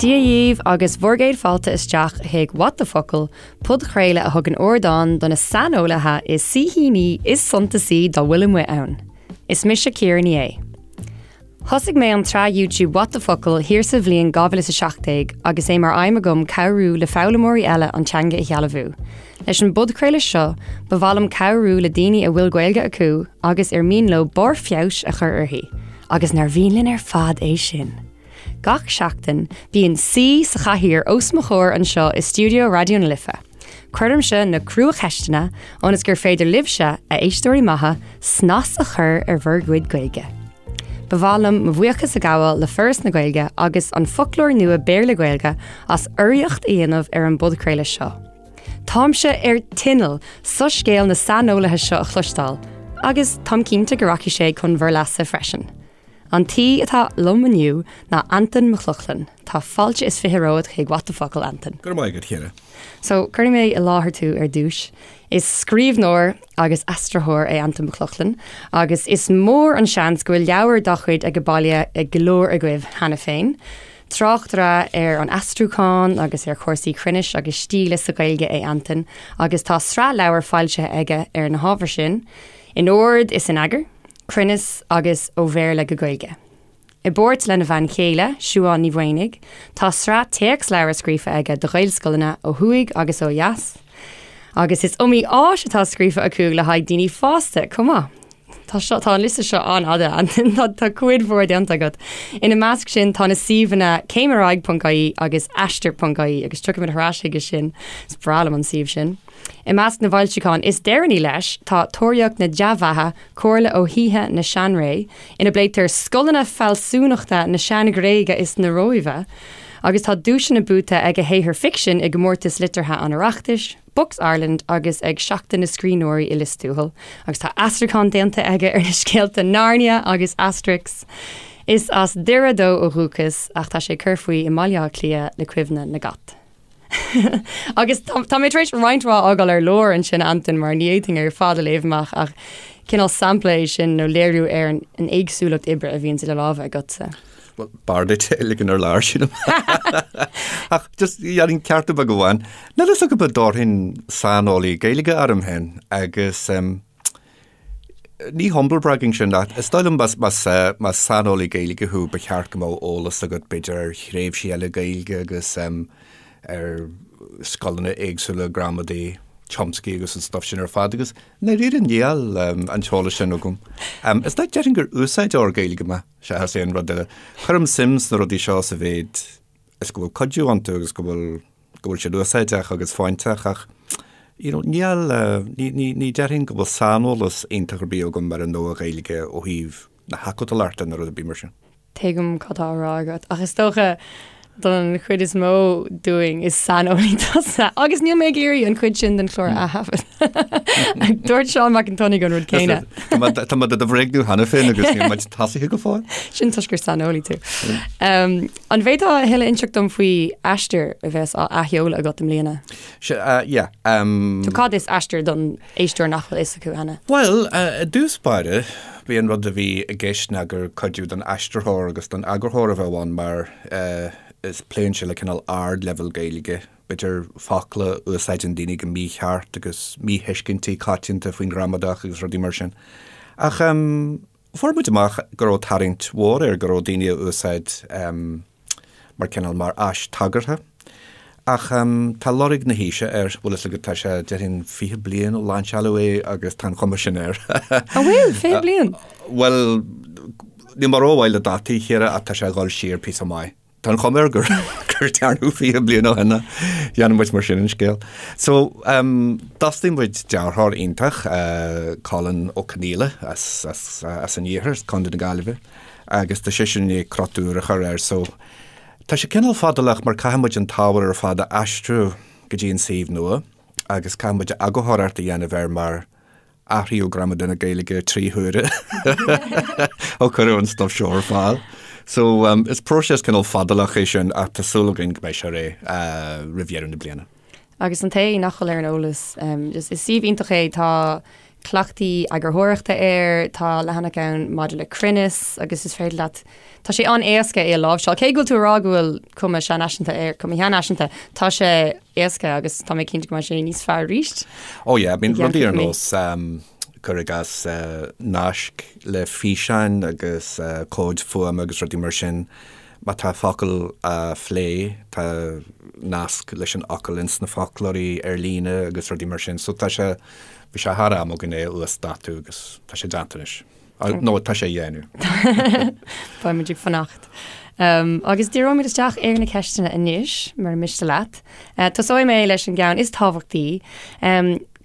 Dia dhaoibh agus bhur gcéad fáilte isteach chuig What the Focal, podchraoladh a thugann ardán do na saineolaithe is saoithíní is suntasaí dá bhfuil amuigh ann. Is mise Ciara Ní É. Thosaigh mé an tsraith YouTube What the Focal thiar sa bhliain 2017 agus é mar aidhm agam cabhrú le foghlaimeoirí eile an teanga a shealbhú. Leis an bpodchraoladh seo, ba mhaith liom cabhrú le daoine a bhfuil Gaeilge acu agus ar mian leo barr feabhais a chur uirthi, agus nár mhian linn ar fad é sin? Gach seachtain, bíonn saoi sa chathaoir os mo chomhair anseo i stiúideo Raidió na Life. Cuirimse na cruacheisteanna ionas gur féidir libhse, a éisteoirí maithe, snas a chur ar bhur gcuid Gaeilge. Ba mhaith liom mo bhuíochas a ghabháil le Foras na Gaeilge agus an Foclóir Nua Béarla-Gaeilge as urraíocht a dhéanamh ar an bpodchraoladh seo. Táimse ar tinneall soiscéal na saineolaithe seo a chloisteáil, agus táim cinnte go rachaidh sé chun bhur leasa freisin. An t-aoi atá liom inniu ná Antain Mac Lochlainn. Tá fáilte is 20 romhat chuig What the Focal, Antain. Go raibh maith agat, a Chiara. So, cuirfidh mé i láthair tú ar dtús. Is scríbhneoir agus aistritheoir é Antain Mac Lochlainn agus is mór an seans go bhfuil leabhar dá chuid age baile ag go leor agaibh cheana féin. Tráchtaire ar an aistriúchán agus ar chúrsaí cruinnis agus stíle sa Ghaeilge é Antain agus tá sraith leabhar foilsithe aige ar na hábhair sin, in ord is in eagar. Cruinneas agus Ó Bhéarla go Gaeilge. I bpáirt lena bhean chéile, Siuán Ní Mhaonaigh, tá sraith téacsleabhar scríofa aige do Ghaelscoileanna ó thuaidh agus ó dheas. Agus is iomaí áis atá scríofa acu le haghaidh daoine fásta chomh maith. Tá seo, tá an liosta seo an-fhada, tá, tá cuid mhór déanta agat. Ina measc sin tá na suíomhanna céimaraghaidh.ie agus aistear.ie agus tiocfaimid ar ais chuige sin, is breá liom an suíomh sin. I measc na bhfoilseachán is deireanaí leis tá Tóraíocht na Dea-Bheatha, Comhairle ó Shaoithe na Seanré, ina bpléitear scoileanna fealsúnachta na Sean-Ghréige is na Róimhe, agus tá duaiseanna buaite ag a shaothar ficsin i gcomórtais liteartha an Oireachtais, Books Ireland agus ag Seachtain na Scríbhneoirí i Lios Tuathail, agus tá aistriúchán déanta aige ar na scéalta Narnia agus Asterix. Is as Doire dó ó dhúchas, ach tá sé ag cur faoi i mBaile Átha Cliath le cuimhne na gcat. Agus tá mé tar éis roinnt mhaith a fhágáil ar lár ansin, Antain, mar ní fhéadfainn ar fad a léamh amach ach cineál sampla é sin nó léiriú ar an éagsúlacht oibre a bhíonns idir lámha agatsa. Bhuel, b'fhearr duit é a ligean ar lár, sílim. Ach just dhéanfainn ceartú beag amháin. Níl fhios agam an dtabharfainn saineolaí Gaeilge orm féin agus Ní humble bragging sin ach is dóigh liom más más saineolaí Gaeilge thú ba cheart go mbeadh eolas agat b'fhéidir ar thréimhsí eile Gaeilge agus ar scoileanna éagsúla gramadaí, Chomsky agus an stuff sin ar fad agus i ndáiríre níl an t-eolas sin agam. Is dóigh déarfainn gur úsáideoir Gaeilge mé seachas aon rud eile. Cuirim suim sna rudaí seo sa mhéid is go bhfuil cuidiú iontu agus go bhfuil go bhfuil siad úsáideach agus fóinteach ach you know níl, ní, ní, ní déarfainn go bhfuil saineolas iontach ar bith agam ar an Nua-Ghaeilge ó thaobh na hacadúlachta nó rud ar bith mar sin. Tuigim cad tá á rá agat ach is dócha don chuid is mó dúinn is saineolaí tusa agus níl mé ag iarraidh an chuid sin den chlár a thaifead. Dúirt Seán Mac an tSionnaigh an rud céanna. Tá mé do do bhréagnú cheana féin agus níl muid tosaithe go fóill. Sin toisc gur saineolaí tú. Um, An bhféadfá a thuilleadh a inseacht dom faoi Aistear a bheas á athsheoladh agat i mbliana? Sea, uh, yeah. Um, So cad is Aistear don éisteoir nach bhfuil fhios acu cheana? Bhuel, uh, i dtús báire, bhí an rud a bhí i gceist ná gur cuidiú don aistritheoir agus don eagarthóir a bheadh ann mar uh, is pléann sé le cineál ardleibhéal Gaeilge, b'fhéidir focla a úsáideann daoine go mícheart agus míthuiscintí coitianta faoin ghramadach agus rudaí mar sin. Ach um, Fuair muid amach go raibh tarraingt mhór air, go raibh daoine á úsáid mar cineál, mar áis tagartha. Ach tá lorg na haoise air, bhfuil fhios agat, tá sé, déarfainn, 20 bliain ó lainseáladh é agus tá an chuma sin air. An bhfuil? 20 bliain? Bhuel, níl mé rómhaith le dátaí, a Chiara, ach tá sé ag dul siar píosa maith. Tá an chuma air gur gur dearnadh 20 bliain ó shin é. Dhéanann muid mar sin an scéal. So, um, d'fhostaigh muid dearthóir iontach, uh, Colin Ó Conghaile as, as, as an iarthar, as Contae na Gaillimhe, agus tá seisean i ndiaidh crot úr a chur air. So, tá sé cineál fadálach mar caithfidh muid an t-ábhar ar fad a aistriú go dtí an suíomh nua agus caithfidh muid eagarthóireacht a dhéanamh air mar Athraíodh gramadach na Gaeilge 3 huaire ó cuireadh an stuif seo ar fáil. So um, is próiseas cineál fadálach é sin ach tá súil againn go mbeidh sé réidh uh, roimh dheireadh na bliana. Agus an té nach bhfuil ar an eolas, um, is, is suíomh iontach é, tá cleachtaí eagarthóireachta air, tá leathanach ann maidir le cruinneas agus is féidir leat, tá sé an-éasca é a láimhseáil. Cé go bhfuil tú ag rá go bhfuil cuma seanfhaiseanta air, cuma sheanfhaiseanta, tá sé éasca agus tá mé cinnte go mbeidh sé níos fearr arís. Oh yeah, I mean rudaí ar nós cuir i gcás naisc le físeáin agus comhaid fuaime agus rudaí mar sin, má tá focal á phlé, tá nasc leis an fhocal ins na foclóirí ar líne agus rudaí mar sin. So tá sé, bhí sé thar am againn é a uasdátú agus tá sé déanta anois. Nó tá sé á dhéanamh. Beidh muid ag fanacht. Agus díreoimid isteach ar na ceisteanna anois, mura miste leat. Tosóidh mé leis an gceann is tábhachtaí.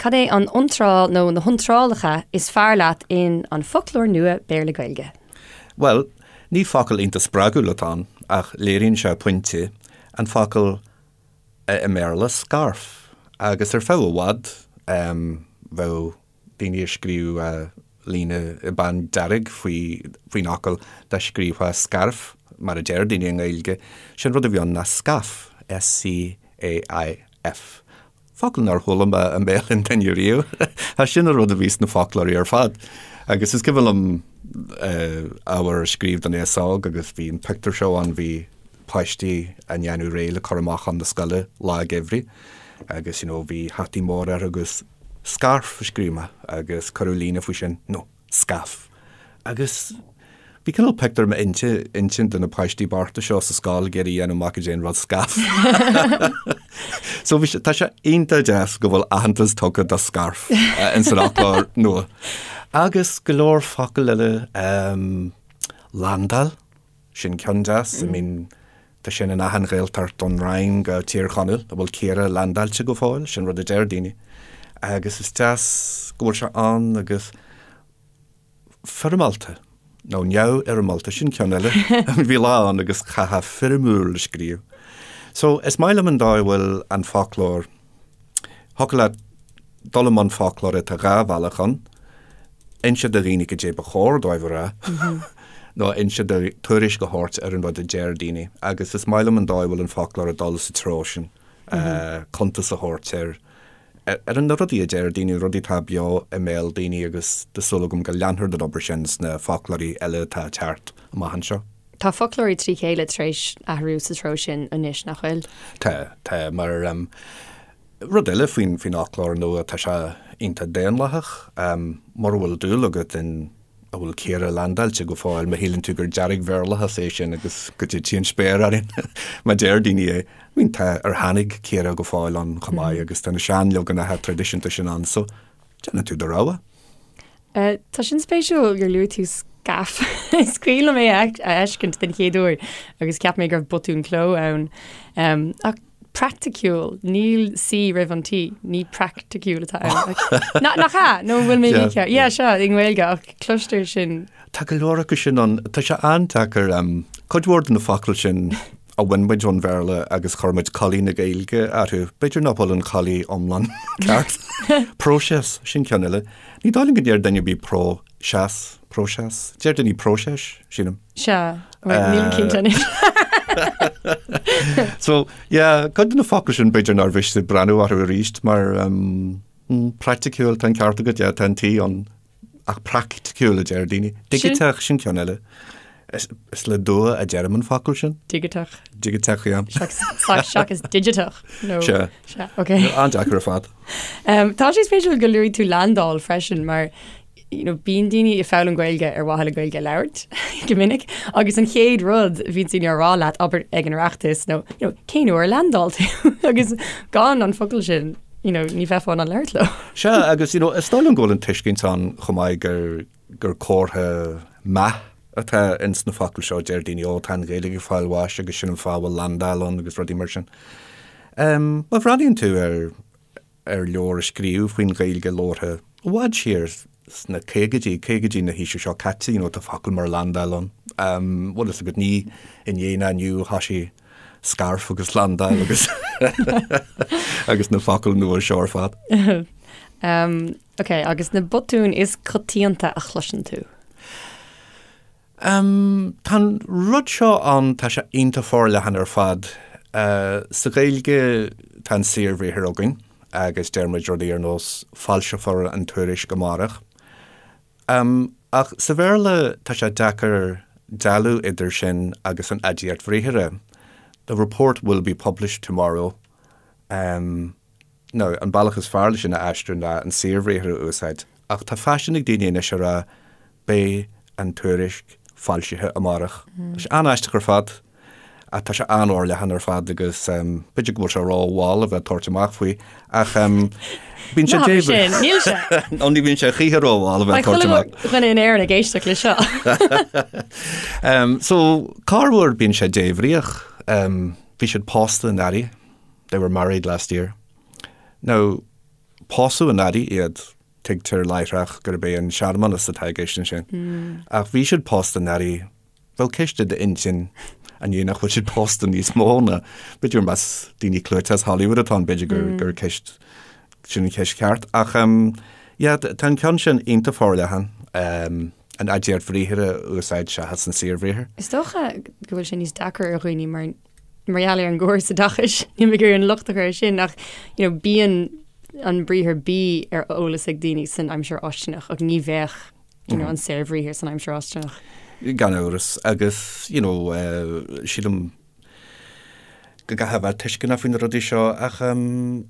Cad é an iontráil nó na hiontrálacha is fearr leat in An Foclóir Nua Béarla-Gaeilge? Bhuel, ní focal iontach spreagúil atá ann, ach léiríonn sé pointe, an focal i mBéarla, scarf. Agus ar feadh i bhfad, bheadh daoine ag scríobh líne i bpeann dearg faoin fhocal dá scríobhfá scairf, mar a deir daoine i nGaeilge. Sé'n rud a bhí ann ná scaff, S-C-A-I-F. Focal nár chuala mé i mbéal aon duine riamh. Ach sin an rud a bhí sna foclóirí ar fad. Agus is cuimhin liom ábhar a scríobh don aos óg agus bhí an pictiúr seo ann, bhí páistí á ndéanamh réidh le cur amach chun na scoile lá geimhridh agus you know bhí hataí móra orthu agus scarf a scríobh mé agus cuireadh líne faoi sin, no, scaff. Agus bhí cineál pictiúr i m'intinn de na páistí bochta seo sa scoil ag iarraidh a dhéanamh amach goidé an rud scaff. So bhí sé, tá sé iontach deas go bhfuil aitheantas tugtha do scarf ins an fhoclóir nua. Agus go leor focal eile, landáil, sin ceann deas, I mean, tá sin in achan Ghaeltacht ón Rinn go Tír Chonaill, an bhfuil caora landáilte go fóill, sin rud a deir daoine. Agus is deas go bhfuil sé ann agus foirmeálta, nó neamhfhoirmeálta, sin ceann eile. Bhí lá ann agus chaithfeá foirmiúil a scríobh. So, is maith liom an dóigh a bhfuil an foclóir, thiocfadh leat dul i mbun foclóra, tá dhá bhealach ann, inse do dhaoine goidé ba chóir dóibh a rá, nó inse do, tuairisc a thabhairt ar an rud a deir daoine. Agus is maith liom an dóigh a bhfuil an foclóir ag dul sa treo sin, cuntas a thabhairt ar ar na rudaí a deir daoine, rudaí atá beo i mbéal daoine agus tá súil agam go leanfar den obair sin sna foclóirí eile atá ag teacht amach anseo. Tá foclóirí trí chéile tar éis athrú sa treo sin anois, nach bhfuil? Tá, tá, mar rud eile faoin faoin fhoclóir nua, tá sé iontach daonlathach. Mura bhfuil dúil agat in an bhfuil caora landáilte go fóill, má shíleann tú gur dearg-Bhéarlachas é sin agus go dtitfidh an spéir orainn má deir daoine é. I mean tá ar tháinig caora go fóill ann chomh maith agus tá na seanleaganacha traidisiúnta sin ann so déanann tú do rogha. Tá sin spéisiúil gur luaigh tú scaff. Is cuimhin liom é a fheiscint den chéad uair agus cheap mé go raibh botún cló ann. Ach praiticiúil, níl C roimh an T, ní praiticiúil atá ann. Nach ea? Nó an bhfuil mé mícheart? Yeah, sea, i nGaeilge, ach cloistear sin. Tá go leor acu sin ann. Tá sé an-deacair. Cuid mhór de na focail sin a bhain muid ón Bhéarla agus chuir muid culaith na Gaeilge orthu. B'fhéidir nach bhfuil an chulaith iomlán ceart. Próiseas, sin ceann eile. Ní dóigh liom go ndeir duine ar bith pró-seas, próiseas. Deir daoine próiseas, sílim. Sea, nílim cinnte anois. So, yeah, cuid de na focail sin b'fhéidir nár mhiste breathnú orthu arís mar um, mm, praiticiúil, tá an ceart agat, yeah, tá an T ann ach praiticiúil a deir daoine. Digiteach sin ceann eile. Is, is le dua a deirim an focal sin. Digiteach. Digiteach, yeah. Seachas digiteach. No. Sea. Sea, ok. An-deacair ar fad. Um, tá sé spéisiúil go luaigh tú landáil freisin mar you know, bíonn daoine ag foghlaim Gaeilge ar mhaithe le Gaeilge a labhairt go minic agus an chéad rud a bhíonn daoine á rá leat abair ag an Oireachtas nó you know, cén uair a landáil tú agus gan an focal sin you know, ní bheifeá in ann labhairt leo. Sea, agus you know, is dóigh liom go bhfuil an tuiscint ann chomh maith gur, gur comhartha meath atá ins na focail seo, deir daoine, ó tá an Ghaeilge ag fáil bháis agus sin an fáth a bhfuil landáil ann agus rudaí mar sin. Um, má bhreathnaíonn tú ar ar leabhar a scríobhadh faoin Ghaeilge labhartha i bhfad siar sna caogaidí, caogaidí na haoise seo caite, you know, tá focail mar landáil ann. Um, bhfuil fhios agat, ní inné ná inniu a thoisigh scarf agus landáil agus agus na focail nua seo ar fad. Um, ok, agus na botúin is coitianta a chloiseann tú? Tá an rud seo ann, tá sé iontach forleathan ar fad. Sa Ghaeilge tá an saorbhriathar againn. agus deir muid rudaí ar nós 'foilseofar an tuairisc amárach'. Ach sa Bhéarla tá sé deacair dealú idir sin agus an aidiacht bhriathartha, 'The report will be published tomorrow'. Now, an bealach is fearr leis sin a aistriú ná an saorbhriathar a úsáid, ach tá faisean ag daoine anois a rá beidh an tuairisc foilsithe amárach. Tá sé an-aisteach ar fad, ach tá sé an-fhorleathan ar fad agus b'fhéidir go bhfuil sé ró-mhall a bheith ag tabhairt amach faoi, ach bíonn sé Ná habair sin, níl sé. Nó ní bhíonn sé choíche ró-mhall a bheith ag tabhairt amach. Beidh chuile dhuine in Éirinn ag éisteacht le seo. So, corruair bíonn sé débhríoch. Bhí siad pósta anuraidh. They were married last year. Now, pósadh anuraidh iad, tuigtear láithreach gurb é an searmanas atá i gceist ansin. Ach bhí siad pósta anuraidh, bheadh ceist i d'intinn an é nach bhfuil siad pósta níos mó ná, b'fhéidir más daoine clúiteacha as Hollywood atá ann, b'fhéidir gur, gur ceist, sin an cheist cheart. Ach, yeah, tá an ceann sin iontach forleathan, an aidiacht bhriathartha a úsáid seachas an saorbhriathar. Is dócha go bhfuil sé níos deacra ar dhaoine mar mar gheall ar an gcóras oideachais, níl mé ag iarraidh an locht a chur air sin, ach you know, bíonn an briathar bí ar eolas ag daoine san aimsir fháistineach ach ní bheadh you know, an saorbhriathar san aimsir fháistineach. Gan amhras, agus you know, uh, sílim go gcaithfidh a bheith tuisceanach faoi na rudaí seo ach um,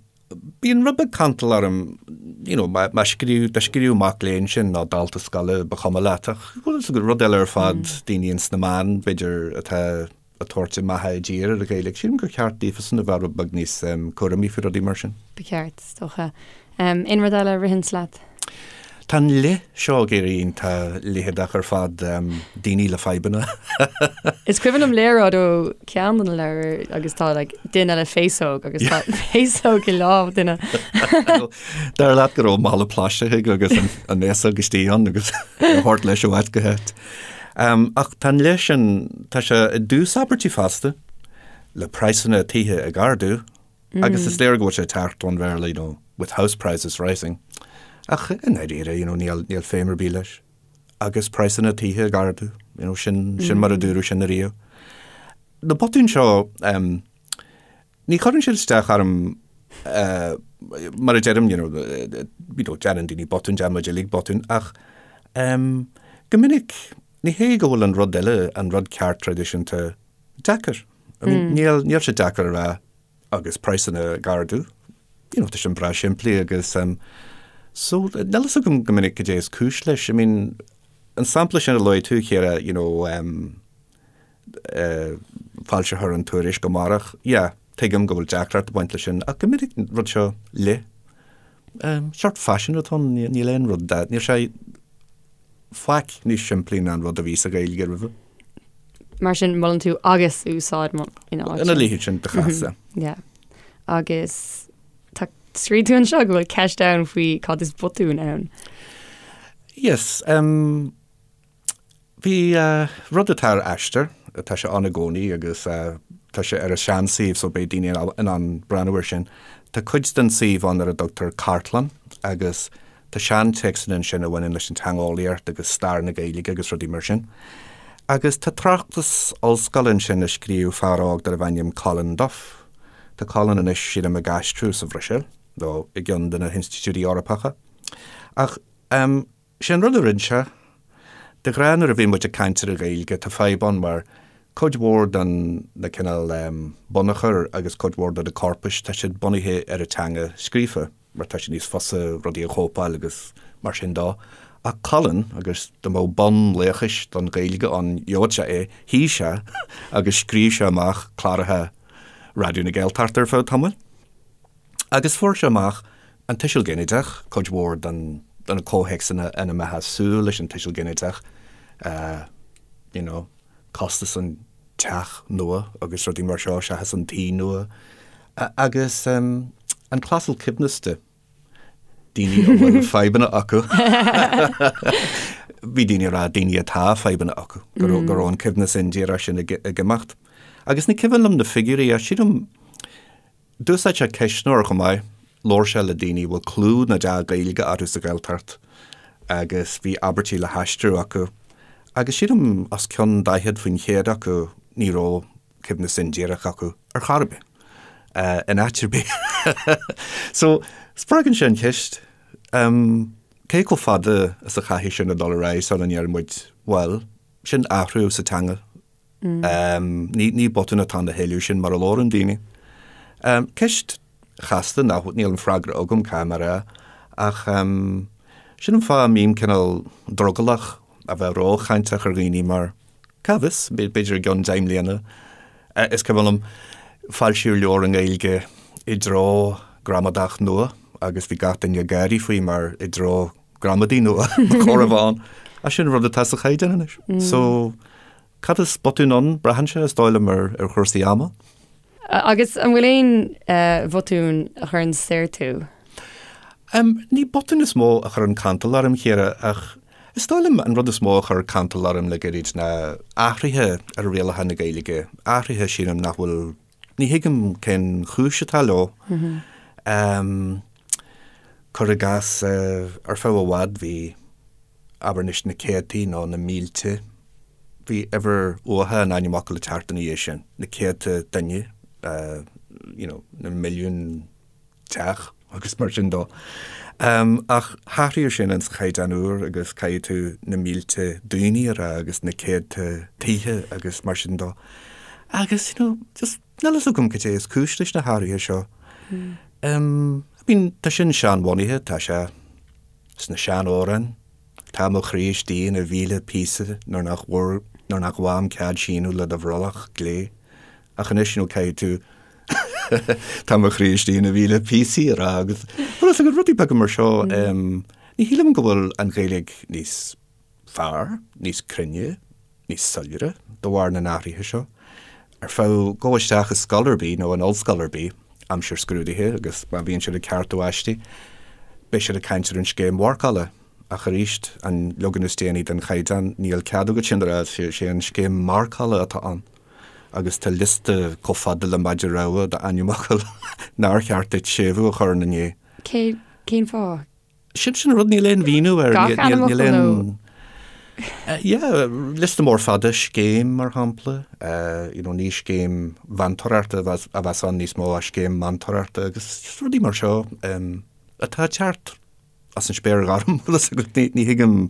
Bíonn rud beag cantal orm, you know, má scríobh, dá scríobh mac léinn sin nó dalta scoile, ba chuma leat, ach bhfuil fhios agat, rud eile ar fad, daoine ins na meáin, b'fhéidir, atá ag tabhairt a mbeatha i dtír ar an Ghaeilge. Sílim gur cheart daofasan a bheith rud beag níos cúramaí faoi rudaí mar sin. Ba cheart, is dócha. Aon rud eile a ritheanns leat? Tá an le seo ag éirí iontach leitheadach ar fad, daoine le fadhbanna. Is cuimhin liom léaráid ó ceann de na leabhair agus tá like, duine le féasóg agus tá féasóg i lámh duine. Dar leat go raibh mála plaisteach aige agus an fhéasóg istigh ann agus á thabhairt leis ó áit go háit. Ach tá an le sin, tá sé i dtús abairtí fosta, le praghsanna tithe ag ardú, Agus is léir go bhfuil sé ag teacht ón Bhéarla, you know, with house prices rising. Ach i ndáiríre, you know, níl, níl feidhm ar bith leis. Agus praghsanna tithe ag ardú, you know, sin, sin mar a dúradh sin ariamh. Na botúin seo, um, ní chuireann siad isteach orm, uh, mar a deirim, you know, you know, déanann daoine botúin, déanann muid uilig botúin, ach um, go minic, ní hé go bhfuil an rud eile, an rud ceart traidisiúnta, deacair. I mean, níl, níl sé deacair a rá agus praghsanna ag ardú. You know, tá sin breá simplí agus um, so níl fhios agam go minic cad é is cúis leis. I mean, an sampla sin a luaigh tú, Ciara, you know, um, uh, foilseofar an tuairisc amárach, yeah, tuigim go bhfuil deacracht ag baint leis sin, ach go minic an rud seo le um, sórt faisean atá ann, níl aon rud, níl sé faic níos simplí ná an rud a bhí sa Ghaeilge roimhe. Mar sin, molann tú agus a úsáid ina áit. Ina leithéid sin de chás. Yeah. Agus tá scríobh tú anseo go bhfuil ceist ann faoi cad is botún ann. Yes, um, bhí uh, rud atá ar Aistear, tá sé ann i gcónaí agus uh, tá sé ar an seansuíomh so beidh daoine in ann breathnú air sin. Tá cuid den suíomh ann ar a dtugtar cartlann agus Tá seantéacsanna ansin a bhaineann leis an teangeolaíocht agus stair na Gaeilge agus rudaí mar sin. Agus tá tráchtas ollscoile ansin a scríobh fear óg darbh ainm Colin Duff. Tá Colin anois, sílim, ag aistriú sa Bhruiséil, nó i gceann de na hinstitiúidí Eorpacha. Ach, em, sé an rud a rinne sé, de ghnáth nuair a bhíonn muid ag caint ar an Ghaeilge, tá fadhb ann mar cuid mhór den na cineál, em, bunachar agus cuid mhór de na corpais, tá siad bunaithe ar an teanga scríofa. mar tá sé níos fusa rudaí a chóipeáil agus mar sin dó. Ach Colin, agus dá mbeadh bonn laochais don Ghaeilge ann, gheobhadh sé é, shuigh sé agus scríobh sé amach cláracha Raidió na Gaeltachta ar feadh tamaill. Agus fuair sé amach an tuiseal ginideach, cuid mhór den de na comhthéacsanna ina mbeifeá ag súil leis an tuiseal ginideach, you know, costas an teach nua agus rudaí mar seo seachas an tí nua agus an clásal coibhneasta, daoine a bhfuil fadhbanna acu. Bhí daoine ag rá daoine atá fadhbanna acu, go raibh go raibh an coibhneas indíreach sin ag imeacht. Agus ní cuimhin liom na figiúirí ach sílim D'úsáid sé ceistneoir chomh maith. Labhair sé le daoine a bhfuil clú na dea-Ghaeilge orthu sa Ghaeltacht agus bhí abairtí le haistriú acu agus sílim os cionn 40% acu ní raibh coibhneas indíreach acu ar chor ar bith. in áit ar bith. So, spreagann sé an cheist, cé chomh fada is a chaithfidh sin a dhul ar aghaidh sula ndeir muid, bhuel, sin athrú sa teanga. Ní botún atá ann a thuilleadh, sin mar a labhrann daoine. Ceist chasta nach, níl an freagra agam, caithfidh mé a rá, ach sin an fáth a mbím cineál drogallach a bheith róchainteach ar dhaoine mar cá bhfios, b'fhéidir i gceann 10 mbliana, is cuimhin liom, foilsíodh leabhar i nGaeilge i dtreo gramadach nua agus bhí gach duine ag gáirí faoi mar i dtreo gramadaí nua ba chóir a bheith ann. Ach sin an rud atá sa chaighdeán anois. So, cad is botún ann? Braitheann sé, is dóigh liom, ar ar chúrsaí ama. Agus an bhfuil aon bhotún a chuireann soir tú? Ní botún is mó a chuireann cantal orm, a Chiara, ach is dóigh liom an rud is mó a chuir cantal orm le gairid ná athruithe ar rialacha na Gaeilge, athruithe sílim nach bhfuil, ní thuigim cén chúis atá leo. Cuir i gcás, ar feadh i bhfad bhí, abair anois, na céadtaí nó na mílte, bhí uimhir uatha an ainmfhocail ag teacht ina dhiaidh sin, na céadta duine, you know, na milliúin teach agus mar sin dó. Ach hathraíodh sin ins an Chaighdeán úr agus caithfidh tú na mílte daoine a rá agus na céadta tithe agus mar sin dó. Agus, you know, just níl fhios agam cad é is cúis leis na hathruithe seo. I mean, tá sin seanbhunaithe, tá sé sna seanamhráin, tá mo chroí istigh ina mhíle píosa nuair nach bhfuair, nuair nach bhfaighim cead síneadh le do bhrollach glé. Ach anois, you know, caithfidh tú tá mo chroí istigh ina mhíle píosaí a rá agus bhfuil fhios agat rudaí beaga mar seo, ní shílim go bhfuil an Ghaeilge níos fearr, níos cruinne, níos soiléire de bharr na n-athruithe seo. Ar feadh gabh isteach i scoil ar bith nó in ollscoil ar bith aimsir scrúdaithe agus má bhíonn siad ag ceartú aistí, beidh siad ag caint ar an scéim mharcála. Ach arís, an leagan is déanaí den chaighdeán, níl cead agat sin a rá, sé an scéim marcála atá ann. Agus tá liosta chomh fada le maide rua d'ainmfhocail nár cheart duit séimhiú a chur ina ndiaidh. Cé, cén fáth? Sin sin an rud, níl aon mhíniú air. Gach ainmfhocal nó? Yeah, liosta mór fada, scéim mar shampla, you know, ní scéim mheantóireachta a bheas ann níos mó ach scéim meantóireachta agus just rudaí mar seo atá ag teacht as an spéir ghorm, bhfuil fhios agat, ní thuigim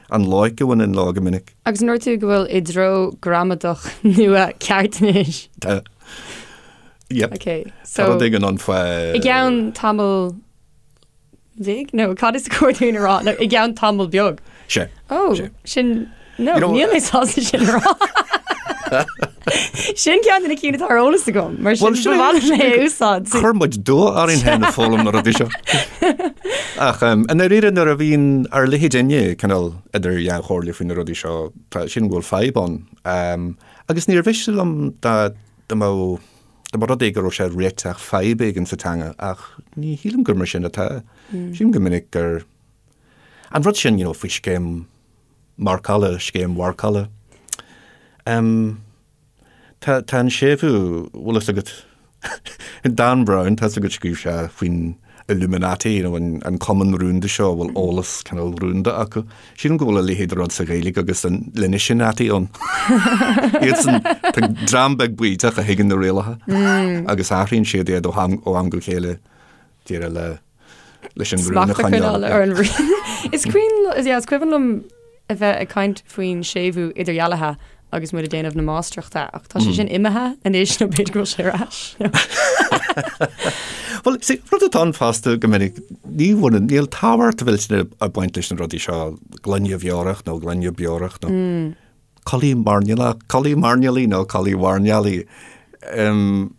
an loighic a bhaineann leo go minic. Agus an ndúirt tú go bhfuil i dtreo gramadach nua ceart anois? Tá. Yep. Ok, so. Tá rud éigin ann faoi. I gceann tamall bhig? Nó cad is cóir dúinn a rá? Nó i gceann tamall beag? Sé. Ó, sin, no, níl mé sásta sin a rá. Sin ceann de na cinn atá ar eolas agam, mar sin ba mhaith liom é a úsáid. Chuir muid dua orainn féin ag foghlaim na rudaí seo. Ach i ndáiríre nuair a bhíonn ár leithéidinne cineál idir dhá chomhairle faoi na rudaí seo, tá sin go bhfuil fadhb ann. Agus níor mhiste liom dá mbeadh Dá mba rud é go raibh sé ag réiteach fadhb éigin sa teanga, ach ní shílim gur mar sin atá. Sílim go minic gur an rud sin, you know, faoi scéim marcála, scéim mharcála. Um, tá, tá an séimhiú, bhfuil fhios agat, Dan Brown, tá fhios agat scríobh sé faoin Illuminati, you know, an, an cumann rúnda seo a bhfuil eolas cineál rúnda acu. Sílim go bhfuil a leithéid de rud sa Ghaeilge agus an Linishinati ann. Iadsan, tá dream beag baoiteach a thuigeann na rialacha agus athraíonn siad iad ó am, ó am go chéile díreach le leis an rún a Smacht a choinneáil choinneáil. ar an rún. Is cuimhin, yeah, is cuimhin liom a bheith ag caint faoin séimhiú idirdhealaithe agus muid ag déanamh na máistreachta ach tá sé sin imithe anois nó b'fhéidir go bhfuil sé ar ais. Bhuel, see, rud atá ann fosta go minic, ní bhaineann, níl tábhacht mhillteanach ag baint leis na rudaí seo, gloine bheorach nó gloine beorach nó culaith mairnéalach, culaith mairnéalaigh nó culaith mhairnéalaigh. Um,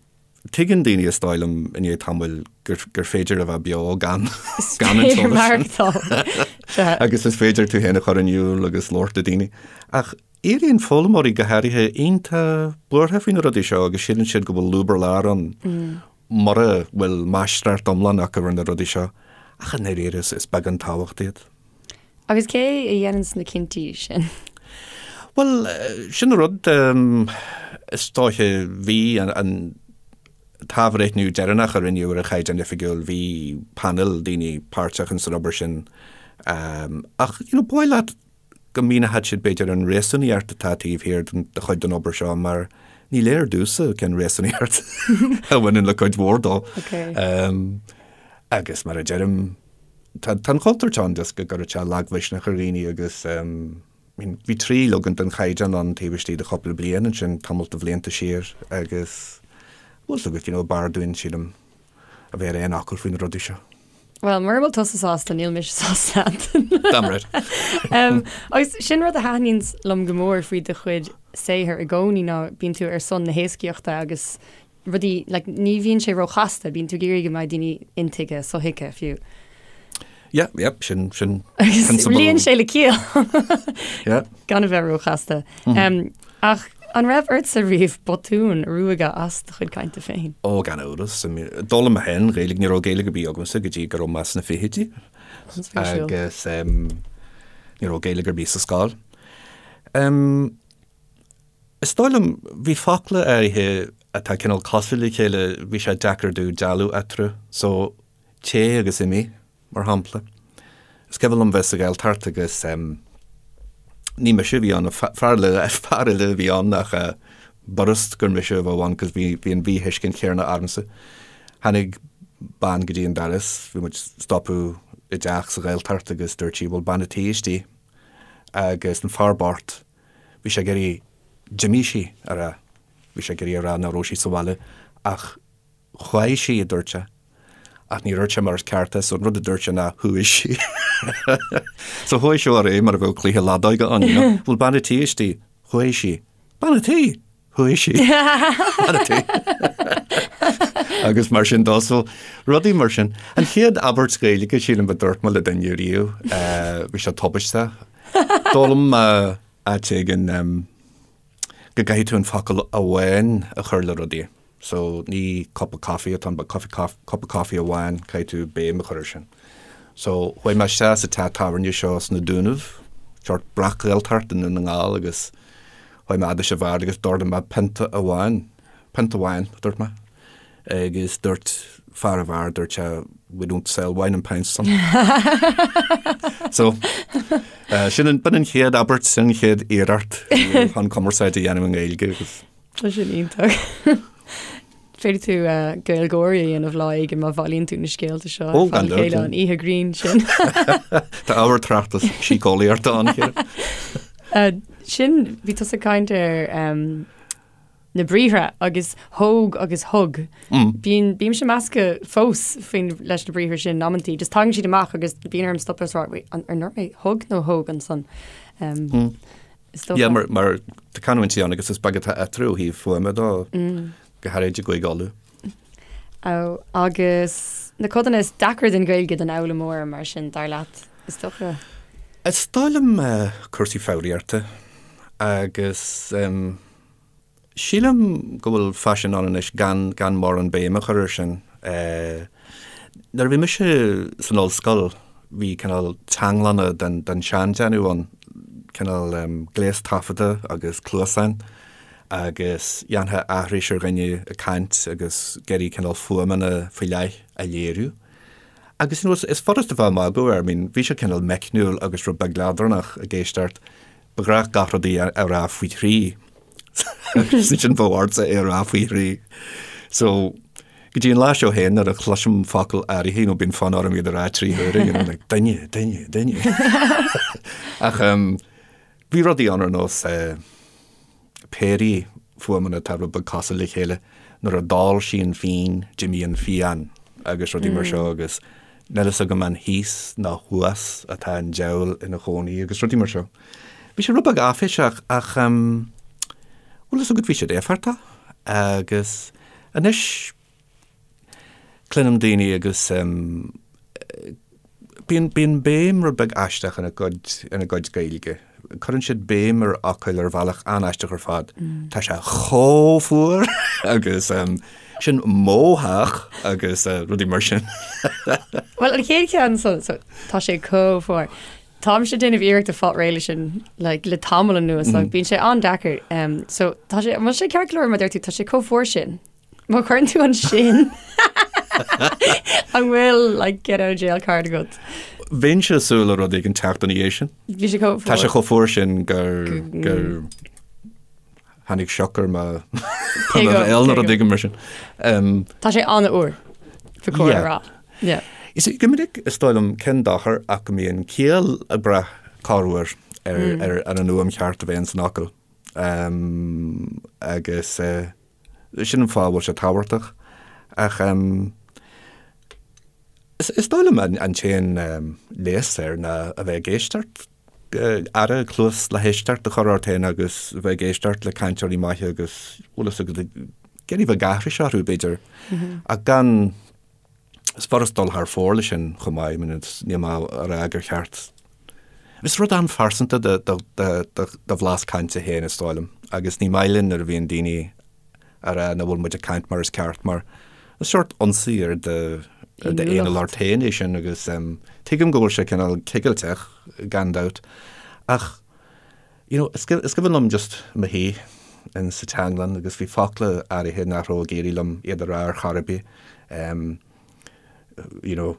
Tuigeann daoine, is dóigh liom, i ndiaidh tamaill gur, gur féidir a bheith beo gan, gan an t-eolas sin. Agus is féidir tú féin a chur in iúl agus labhairt le daoine. Ach éiríonn foghlaimeoirí go háirithe iontach buartha faoi na rudaí seo agus síleann siad go bhfuil lúb ar lár ann mura bhfuil máistreacht iomlán acu ar na rudaí seo. Ach i ndáiríre is, is beag an tábhacht iad. Agus cé a dhéananns na cinntí sin? Bhuel, sin an rud, is dóiche, bhí an t-athbhreithniú deireanach a rinneadh ar an Chaighdeán Oifigiúil, bhí painéal daoine páirteach ins an obair sin. Ach, you know, ba mhaith leat go míneochadh siad b'fhéidir an réasúnaíocht atá taobh thiar de chuid den obair seo mar. Ní léir domhsa cén réasúnaíocht a bhaineann le cuid mhór dó. Agus mar a deirim, tá an chontúirt ann just go gcuirfeadh sé lagmhisneach ar dhaoine agus bhí trí leagan den chaighdeán ann taobh istigh de chúpla bliain ansin, tamall de bhlianta siar agus bhfuil 's agat, you know, b'fhearr dúinn, sílim, a bheith ar aon fhocal faoi na rudaí seo. Bhuel, mura bhfuil tusa sásta, níl mise sásta, Antain. Damn right. Agus sin rud a thaitníonn liom go mór faoi do chuid saothair i gcónaí ná bíonn tú ar son na héascaíochta agus rudaí, like, ní bhíonn sé róchasta, bíonn tú ag iarraidh go mbeidh daoine intuigthe, sothuigthe fiú. Yeah, yeah, sin, sin Agus prionsabal. luíonn sé le ciall. Yeah. Gan a bheith róchasta. Ach an raibh ortsa riamh botún a ruaigeadh as do chuid cainte féin? Ó, gan amhras. D'fhoghlaim mé féin Gaeilge, ní raibh Gaeilge ar bith agamsa go dtí go raibh mé sna fichidí. An-spéisiúil. Agus ní raibh Gaeilge ar bith sa scoil. Is dóigh liom, bhí focla áirithe atá cineál cosúil le chéile, bhí sé deacair domh dealú eatarthu. So, téigh agus imigh. mar shampla. Is cuimhin liom bheith sa Ghaeltacht agus ní mise a bhí ann, fear eile, fear eile a bhí ann ach b'fhurast gur mise a bheadh ann cos bhí, bhí an mhíthuiscint chéanna ormsa. Tháinig bean go dtí an doras, bhí muid stopadh i dteach sa Ghaeltacht agus dúirt sí bhfuil bean a' tí istigh agus an fear bocht, bhí sé ag iarraidh d'imigh sí a rá, bhí sé ag iarraidh a rá nach raibh sí sa bhaile ach Chuaigh sí, a dúirt sé. Ach ní dúirt sé mar is ceart é, so an rud a dúirt sé ná chuaigh sí. So chuaigh seo ar aghaidh mar a bheadh cluiche leadóige ann, you know. Bhfuil bean a' tí istigh? Chuaigh sí. Bean a' tí! Chuaigh sí. Bean a' tí. Agus mar sin dó, so rudaí mar sin. An chéad abairt Ghaeilge, sílim, a dúirt mé le duine riamh, bhí sé tubaisteach. D'fhoghlaim mé áit éigin go gcaithfidh tú an focal amháin a chur le rudaí. So ní cup of coffee atá ann but coffee cup of coffee amháin, caithfidh tú béim a chur air sin. So chuaigh mé isteach sa teach tábhairne seo sna Dúnaibh, sórt breac-Ghaeltacht i nDún na nGall agus chuaigh mé fhad leis an bheár agus d'ordaigh mé pionta amháin, pionta amháin a dúirt mé agus dúirt fear an bheáir, dúirt sé we don't sell wine in pints son. So sin an, b'in an chéad abairt, sin an chéad iarracht chun cumarsáid a dhéanamh i nGaeilge agus Tá sin iontach. Féadfaidh tú Gaeilgeoirí a dhéanamh lá éigin má bhailíonn tú na scéalta seo Ó, gan dabht. chéile an oíche grinn sin. Tá ábhar tráchtas síceolaíochta ann, Ciara. Sin, bhí tusa ag caint ar na briathra agus thóg agus thug. Bíonn, bímse measctha fós faoin leis na briathra sin amantaí. Just tagann siad amach agus bíonn orm stopadh is rá, wait, an ar ndúirt mé thug nó thóg ansan? Is dócha. Yeah, mar, mar tá canúintí ann agus is beag atá eatarthu ó thaobh fuaime dó, go háirid i gCúige Uladh. Ó, agus na codanna is deacra den Ghaeilge don fhoghlaimeoir mar sin, dar leat, is dócha? Is dóigh liom cúrsaí foghraíochta agus Sílim go bhfuil faisean ann anois gan gan mórán béim a chur air sin. Nuair a bhí mise san ollscoil bhí cineál teanglanna den den seandéanamh ann, cineál gléas taifeadta agus cluasáin agus dhéanfá aithris ar dhuine ag caint agus ag iarraidh cineál fuaimeanna faoi leith a léiriú. Agus you know is furast a bheith ag magadh air, I mean bhí sé cineál meicniúil agus rud beag leadránach ag éisteacht. Ba ghnách gach rud a rá faoi thrí. Agus ansin bheadh ortsa é a rá faoi thrí. So, go dtí an lá seo féin nuair a chloisim focal áirithe, you know, bíonn fonn orm iad a rá trí huaire, you know, like, duine, duine, duine. Ach um, bhí rudaí ann ar nós eh, péirí fuaimeanna atá rud beag cosúil le chéile, nuair a d'ól sí an fíon, d'imigh an phian agus rudaí mar seo agus níl fhios agam an thíos nó thuas atá an diabhal ina chónaí agus rudaí mar seo. Bhí sé rud beag áiféiseach ach bhfuil fhios agat bhí siad éifeachtach agus anois Cluinim daoine agus bíonn, bíonn béim rud beag aisteach ina gcuid, ina gcuid Gaeilge. Cuireann siad béim ar fhocail ar bhealach an-aisteach ar fad. Tá sé chomh fuar agus sin mo theach agus rudaí mar sin. Bhuel, an chéad cheann so, so, tá sé chomh fuar. Táimse ag déanamh iarracht a fáil réidh leis sin like, le tamall anuas, mm. bíonn sé an-deacair. Um, so tá sé, an bhfuil sé ceart go leor má deir tú, tá sé chomh fuar sin. Má chuireann tú an sin an bhfuil like, get out of jail card agat? Bheinnse ag súil le rud éigin teacht ina dhiaidh sin. Bhí sé chomh Tá sé chomh fuar sin gur gur. Tháinig sioc ar mo bhéal nuair a tuigim mar sin. Tá sé an-úr, ba chóir a rá. Yeah. Is go minic is dóigh liom cén dochar ach go mbíonn ciall ag brath corruair ar mm. ar an fhuaim cheart a bheith san fhocal. Um, agus uh, sin an fáth bhfuil sé tábhachtach. Ach um, is, is dóigh liom an, an t-aon um, leigheas air ná a bheith ag éisteacht aire, cluas le héisteacht a chur ort féin agus a bheith ag éisteacht le cainteoirí maithe agus bhfuil fhios agat ag iarraidh bheith ag aithris orthu b'fhéidir ach gan is furast dul thar fóir leis sin chomh maith, I mean níl mé a rá gur cheart Is rud an-phearsanta do bhlas cainte féin is dóigh liom agus ní maith linn nuair a bhíonn daoine a rá nach bhfuil muid ag caint mar is ceart mar is seort ionsaí ar d'fhéiniúlacht féin é sin agus tuigim go bhfuil sé cineál cigilteach gan dabht ach you know is cuimhin liom just mo shuí in sa teanglann agus bhí focla áirithe nach raibh ag éirí liom iad a rá ar chor ar bith you know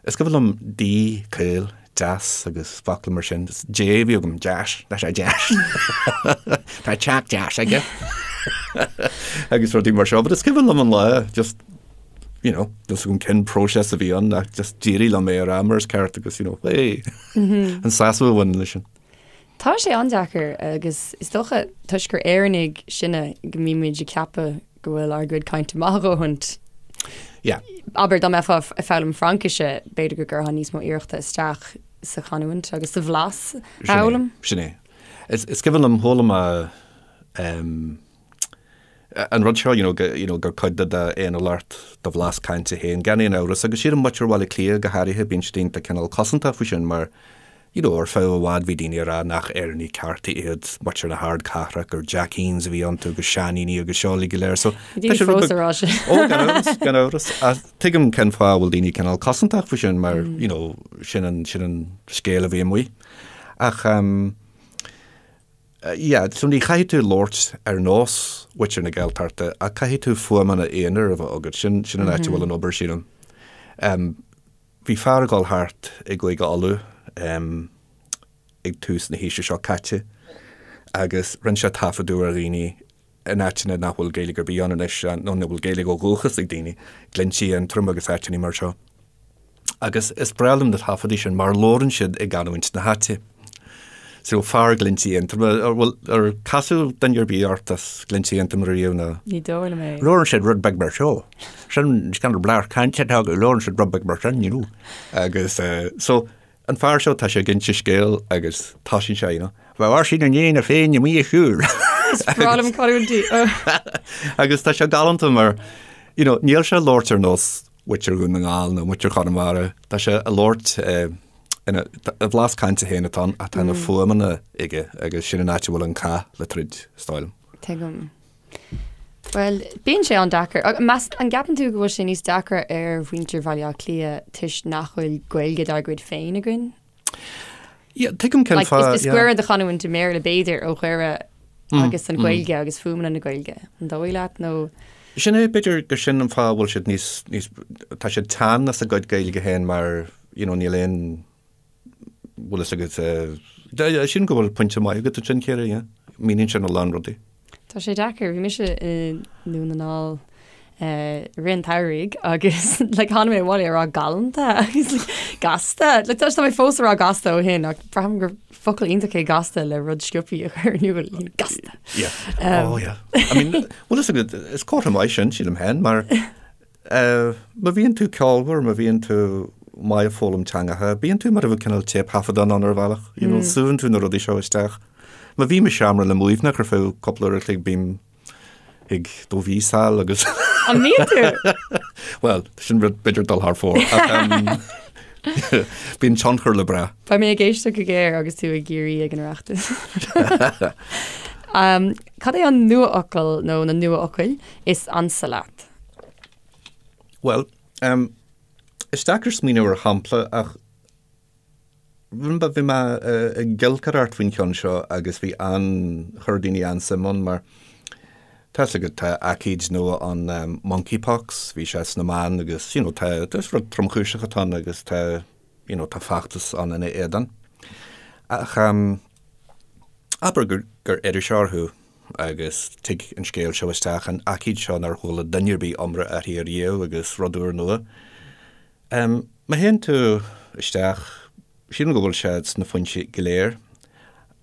Is cuimhin liom D, caol, deas agus focla mar sin. J a bhí agam, deas, tá sé deas. Tá teach deas aige. Agus rudaí mar seo, but is cuimhin liom an lá just you know, just agam cén próiseas a bhí ann ach just d'éirigh liom é a rá mar is ceart agus you know, hey, an sásamh a bhain leis sin. Tá sé an-deacair agus is dócha toisc gur Éireannaigh sinne go mbímid ag ceapadh go bhfuil ár gcuid cainte maith a dhóthain. Yeah. Abair dá mbeifeá ag foghlaim Fraincise, b'fhéidir go gcuirfeá níos mó iarrachta isteach sa chanúint agus sa bhlas a fhoghlaim. Sin é. Is, is cuimhin liom chuala mé um, an rud seo, you know, go, you know, gur cuid de d'fhéiniúlacht do bhlas cainte féin, gan aon amhras, agus sílim muintir Bhaile Átha Cliath go háirithe, bíonn siad iontach cineál cosantach faoi sin mar You know, ar feadh i bhfad bhí daoine ag rá nach Éireannaigh cearta iad muintir na hardcathrach, gur Jackeens a bhí iontu agus seainíní agus seo uilig go léir. So, Bhí daoine fós ag rá sin. Ó, gan amhras, gan amhras. Ach tuigim cén fáth a bhfuil daoine cineál cosantach faoi sin mar, you know, sin an, sin an scéal a bhí amuigh. Ach, um, yeah, so ní chaithfidh tú labhairt ar nós mhuintir na Gaeltachta ach caithfidh tú fuaimeanna aonair a bheith agat. Sin, sin an áit a bhfuil an obair, sílim. Um, Bhí fear ag dul thart i gCúige Uladh ag tús na haoise seo caite agus rinne sé taifeadadh ar dhaoine in áiteanna nach bhfuil Gaeilge ar bith ann anois, nó nach bhfuil Gaeilge ó dhúchas ag daoine, Glinntí Aontroim agus áiteanna mar seo. Agus is breá liom na taifeadaí sin mar labhrann siad i gcanúint na háite. So fear Ghlinntí Aontroma, ar bhfuil, ar casadh duine ar bith ort as Glinntí Aontroma riamh nó? Ní dóigh liom é. Labhrann siad rud beag mar seo. Sin kind of blas cainte atá acu, labhrann siad rud beag mar sin, you know. Agus eh, so an fear seo tá sé ag inse scéal agus tosaíonn sé, you know, Bheadh Oisín i ndiaidh na Féinne amuigh ag siúl. Is breá liom canúintí. Agus tá sé galánta mar, you know, níl sé ag labhairt ar nós muintir Dhún na nGall nó muintir Chonamara, tá sé ag labhairt eh, ina, a bhlas cainte féin atá ann ach tá na fuaimeanna aige agus sin an áit a bhfuil an cath le troid, is dóigh liom. Tuigim. Bhuel, bíonn sé an-deacair. Meas, an gceapann tú go bhfuil sé níos deacra ar mhuintir Bhaile Átha Cliath toisc nach bhfuil Gaeilge dár gcuid féin againn? Yeah, tuigim cén Like, fáth, is, is yeah. gaire do chanúint i mBéarla b'fhéidir ó Dhoire agus an Ghaeilge agus fuaimeanna na Gaeilge. An dóigh leat nó? Sin é, b'fhéidir gur sin an fáth a bhfuil siad níos, níos, tá siad teann as a gcuid Gaeilge féin mar, you know, níl aon, bhfuil fhios agat, eh, sílim go bhfuil pointe maith agat ansin, Ciara, yeah. Míníonn sin a lán rudaí. Tá sé deacair, bhí mise i nDún na nGall eh, i rith an tsamhraidh agus like, tháinig mé abhaile ag rá galánta agus like, gasta. Like, tá tá mé fós ag rá gasta ó shin ach braithim gur focal iontach é gasta le rud sciobtha a chur in iúl. Gasta. Yeah. Oh, yeah. I mean, bhfuil fhios agat, is comhartha maith sin, sílim féin, mar Má bhíonn tú ceolmhar, má bhíonn tú maith ag foghlaim teangacha, bíonn tú mar a bheadh cineál téipthaifeadán ann ar bhealach, you know, súnn tú na rudaí seo isteach. Má bhím i seomra le Muimhneach ar feadh cúpla uair a chloig, bím ag do mhíosáil agus. An mbíonn tú? Bhuel, sin rud b'fhéidir dul thar fóir, ach bíonn tionchar le brath. Beidh mé ag éisteacht go géar agus tú i gCiarraí ag an Oireachtas. Cad é an nuafhocal nó na nuafhocail is ansa leat? Bhuel, um, is deacair smaoineamh ar shampla ach bhí mé ag giolcaireacht faoin cheann seo agus bhí an, chuir daoine an-suim ann mar tá fhios agat tá aicíd nua ann um, monkeypox, bhí sé sna meáin agus you know, tá, is rud tromchúiseach atá ann agus tá you know, tá feachtas ann ina éadan. Ach um, abair gur, gur iriseoir thú. agus tig an scéal seo isteach, an aicíd seo nár chuala duine ar bith iomrá uirthi ariamh agus rud úrnua. Má théann tú isteach, sílim go bhfuil sé sna foinsí go léir,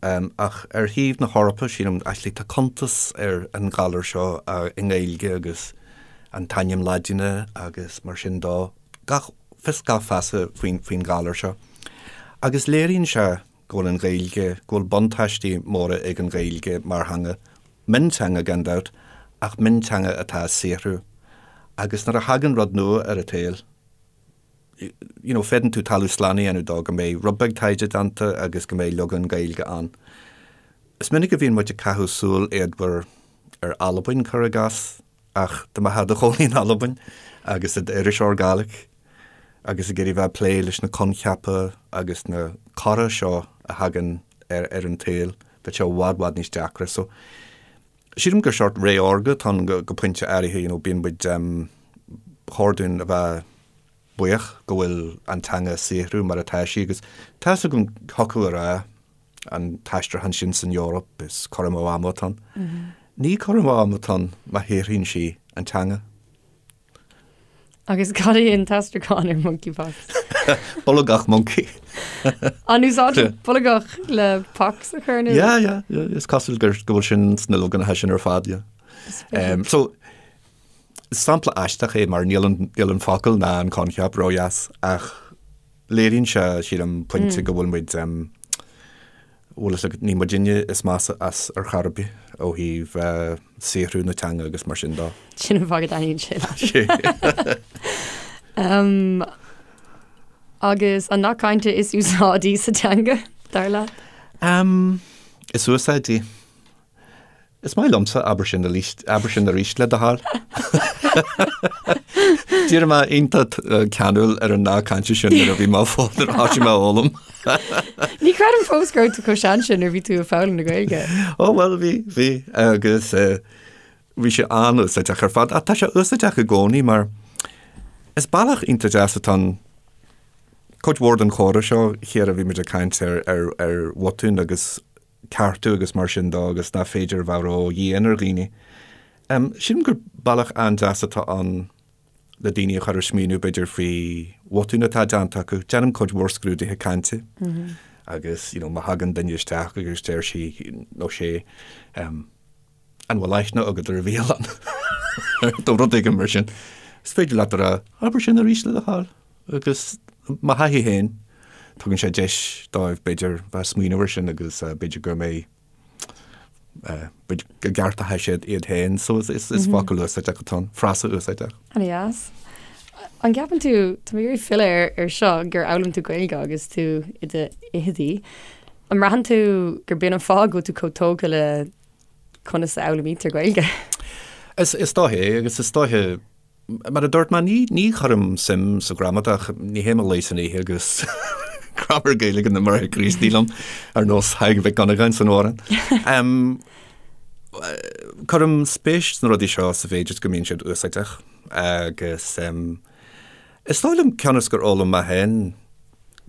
ach ar thaobh na hEorpa, sílim, actually tá cuntas ar an ghalar seo i nGaeilge agus an t-ainm Laidine agus mar sin dó, gach fios gach feasa faoin faoin ghalar seo. Agus léiríonn sé go bhfuil an Ghaeilge, go bhfuil buntáistí móra ag an Ghaeilge mar theanga, mionteanga gan dabht, ach mionteanga atá ag saothrú. Agus nuair a thagann rud nua ar an tsaol, you know, féadann tú talamh slán a dhéanamh dó go mbeidh rud beag taighde déanta agus go mbeidh leagan Gaeilge ann. Is minic a bhíonn muid ag caitheamh súil éadmhar ar Albain, cuir i gcás, ach dá mbeifeá i do chónaí in Albain agus i d'iriseoir Gàidhlig agus ag iarraidh bheith ag plé leis na coincheapa agus na cora seo a thagann ar ar an tsaol, bheadh sé i bhfad bhfad níos deacra. So, sílim gur seort ré órga atá ann go pointe áirithe, you know, bíonn muid, ba chóir dúinn a bheith buíoch go bhfuil an teanga ag saothrú mar atá sí agus tá 'fhios agam thiocfadh a rá an t-aistriúchán sin san Eoraip is cur amú ama atá ann. Ní cur amú ama atá ann má shaothraíonn sí an teanga. Agus cad é an t-aistriúchán ar monkeypox? Bolgach moncaí. An úsáidtear bolgach le pox a chur in iúl? Yeah, yeah, yeah, is cosúil gur go bhfuil sin sna logainmneacha sin ar fad, yeah. Um, so, sampla aisteach é mar níl an, níl an focal ná an coincheap ródheas ach léiríonn sé, sílim, pointe go bhfuil muid, um, bhfuil fhios agat, ní muidinne is measa as ar chor ar bith ó thaobh saothrú na teanga agus mar sin dó. Sin an fáth go dtaitníonn sé leat. Agus an nath cainte is úsáidí sa teanga, dar leat? Is úsáidí. Is maith liomsa, abair sin arís, abair sin arís le do thoil. D'éirigh mé iontach ceanúil ar an nath cainte sin nuair a bhí mé fó nuair a thosaigh mé a fhoghlaim. Ní chreidim fós go raibh tú chomh sean sin nuair a bhí tú ag foghlaim na Gaeilge. Ó bhuel bhí, bhí agus bhí sé an-úsáideach ar fad. Ach tá sé úsáideach i gcónaí mar is bealach iontach deas atá ann cuid mhór den chomhrá seo, Chiara, bhí muid ag caint ar, ar, ar bhotúin agus ceartú agus mar sin dó agus nach féidir a bheith ró-dhian ar dhaoine. Sílim gur bealach an-deas atá ann le daoine a chur ag smaoineamh b'fhéidir faoi bhotúin atá déanta acu. Déanaim cuid mhór scrúduithe cainte agus you know má thagann duine isteach agus deir sí nó sé an bhfuil aithne agat ar bhialann nó rud éigin mar sin, is féidir leat a rá abair sin arís le do thoil. Agus mo thaithí féin, tugann sé deis dóibh, b'fhéidir, bheith ag smaoineamh air sin agus b'fhéidir go mbeidh, b'fhéidir go gceartóidh siad iad féin. So is focal úsáideach atá ann, frása úsáideach. An-deas. An gceapann tú, tá mé ag iarraidh filleadh ar seo, gur fhoghlaim tú Gaeilge agus tú i do fhichidí. An mbraitheann tú gur b'in an fáth go bhfuil tú chomh tógtha le conas a fhoghlaimítear Gaeilge? Is dóiche é agus is dóiche Mar a dúirt mé, ní, ní chuirim suim sa ghramadach, ní théim a luí san oíche agus Graiméar Gaeilge na mBráithre Críostaí liom, ar nós Thaidhg Mhic Dhonnagáin san amhrán. Cuirim spéis sna rudaí seo sa mhéid is go mbíonn siad úsáideach agus is dóigh liom cionn is gur fhoghlaim mé féin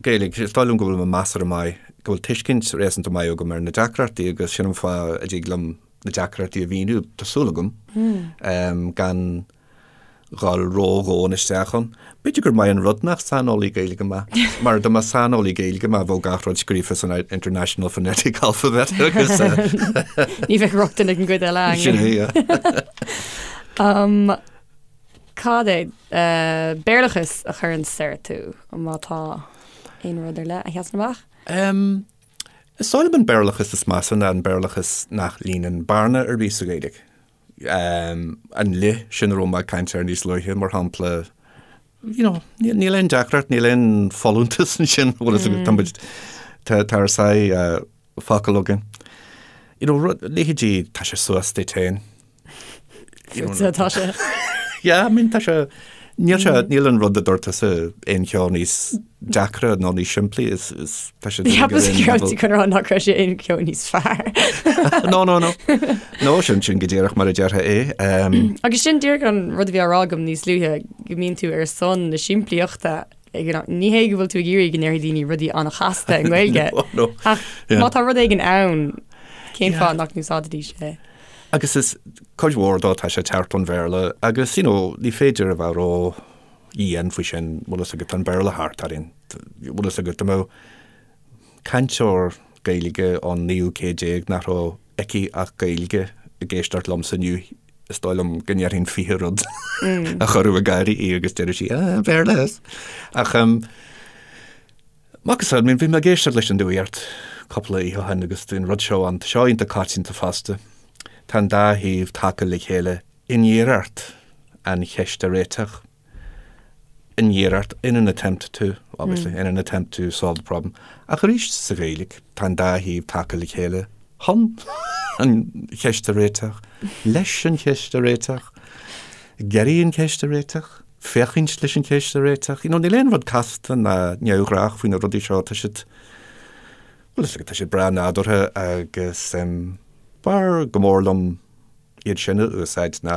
Gaeilge, is dóigh liom go bhfuil mé measartha maith, go bhfuil tuiscint réasúnta maith agam ar na deacrachtaí agus sin an fáth a dtig liom na deacrachtaí a mhíniú, tá súil agam, gan dhul ródhomhain isteach ann. B'fhéidir gur maith an rud nach saineolaí Gaeilge mé, mar dá mba saineolaí Gaeilge mé bheadh gach rud scríofa san International Phonetic Alphabet agus. Ní bheadh rochtain ag an gcuid eile againn. Sin é, yeah. Cad é Béarlachas a chuireann soir tú, má tá aon rud ar leith a sheasann amach? Is dóigh liom an Béarlachas is measa ná an Béarlachas nach líonann bearna ar bith sa Ghaeilge. An 'le' sin a raibh mé ag caint air níos luaithe, mar shampla, you know, níl aon deacracht, níl aon folúntas ansin, bhfuil fhios agat, tá muid, tá tá ár sáith focal againn. You know, rud, leithéidí, tá sé suas duit féin. Fútsa atá sé. Yeah, I mean, tá sé, níl sé, níl an rud a dúirt tusa aon cheo níos deacra nó níos simplí, is, is, tá sé Cheapas go raibh tú chun rá nach raibh sé aon cheo níos fearr. No, no, no. No, sin, sin go díreach mar a déarfá é. Um, Agus sin díreach an rud a bhí á rá agam níos luaithe, go mbíonn tú ar son na simplíochta ag an am. Ní hé go bhfuil tú ag iarraidh go ndéarfaidh daoine rudaí an-chasta i nGaeilge, No, no. ach Yeah. má tá rud éigin ann, cén Yeah. fáth nach n-úsáidfidís é? Agus is cuid mhór dó tá sé ag teacht ón Bhéarla agus you know ní féidir a bheith ró-dhian faoi sin, bhfuil fhios agat, tá an Béarla thart orainn, bhfuil fhios agat, dá mbeadh cainteoir Gaeilge ón naoú céad déag nach raibh aici ach Gaeilge ag éisteacht liomsa inniu, is dóigh liom go ndéarfainn 20 rud a chuirfeadh ag gáire í agus déarfadh sí, ah, Béarla! Ach um, Macasamhail, bhí mé ag éisteacht leis an nuacht cúpla oíche ó shin agus bhí an rud seo ann, tá seo iontach coitianta fosta. Tá an dá thaobh tagtha le chéile in iarracht an cheist a réiteach. In iarracht, in an attempt to, obviously, in an attempt to solve the problem. Ach arís sa Ghaeilge, tá an dá thaobh tagtha le chéile chun an cheist a réiteach, leis an cheist a réiteach, ag iarraidh an cheist a réiteach. féachaint leis an cheist a réiteach. You know, níl aon rud casta ná neamhghnách faoi na rudaí seo, tá siad, bhuel, is tá siad breá nádúrtha agus um, b'fhearr go mór liom iad sin a úsáid ná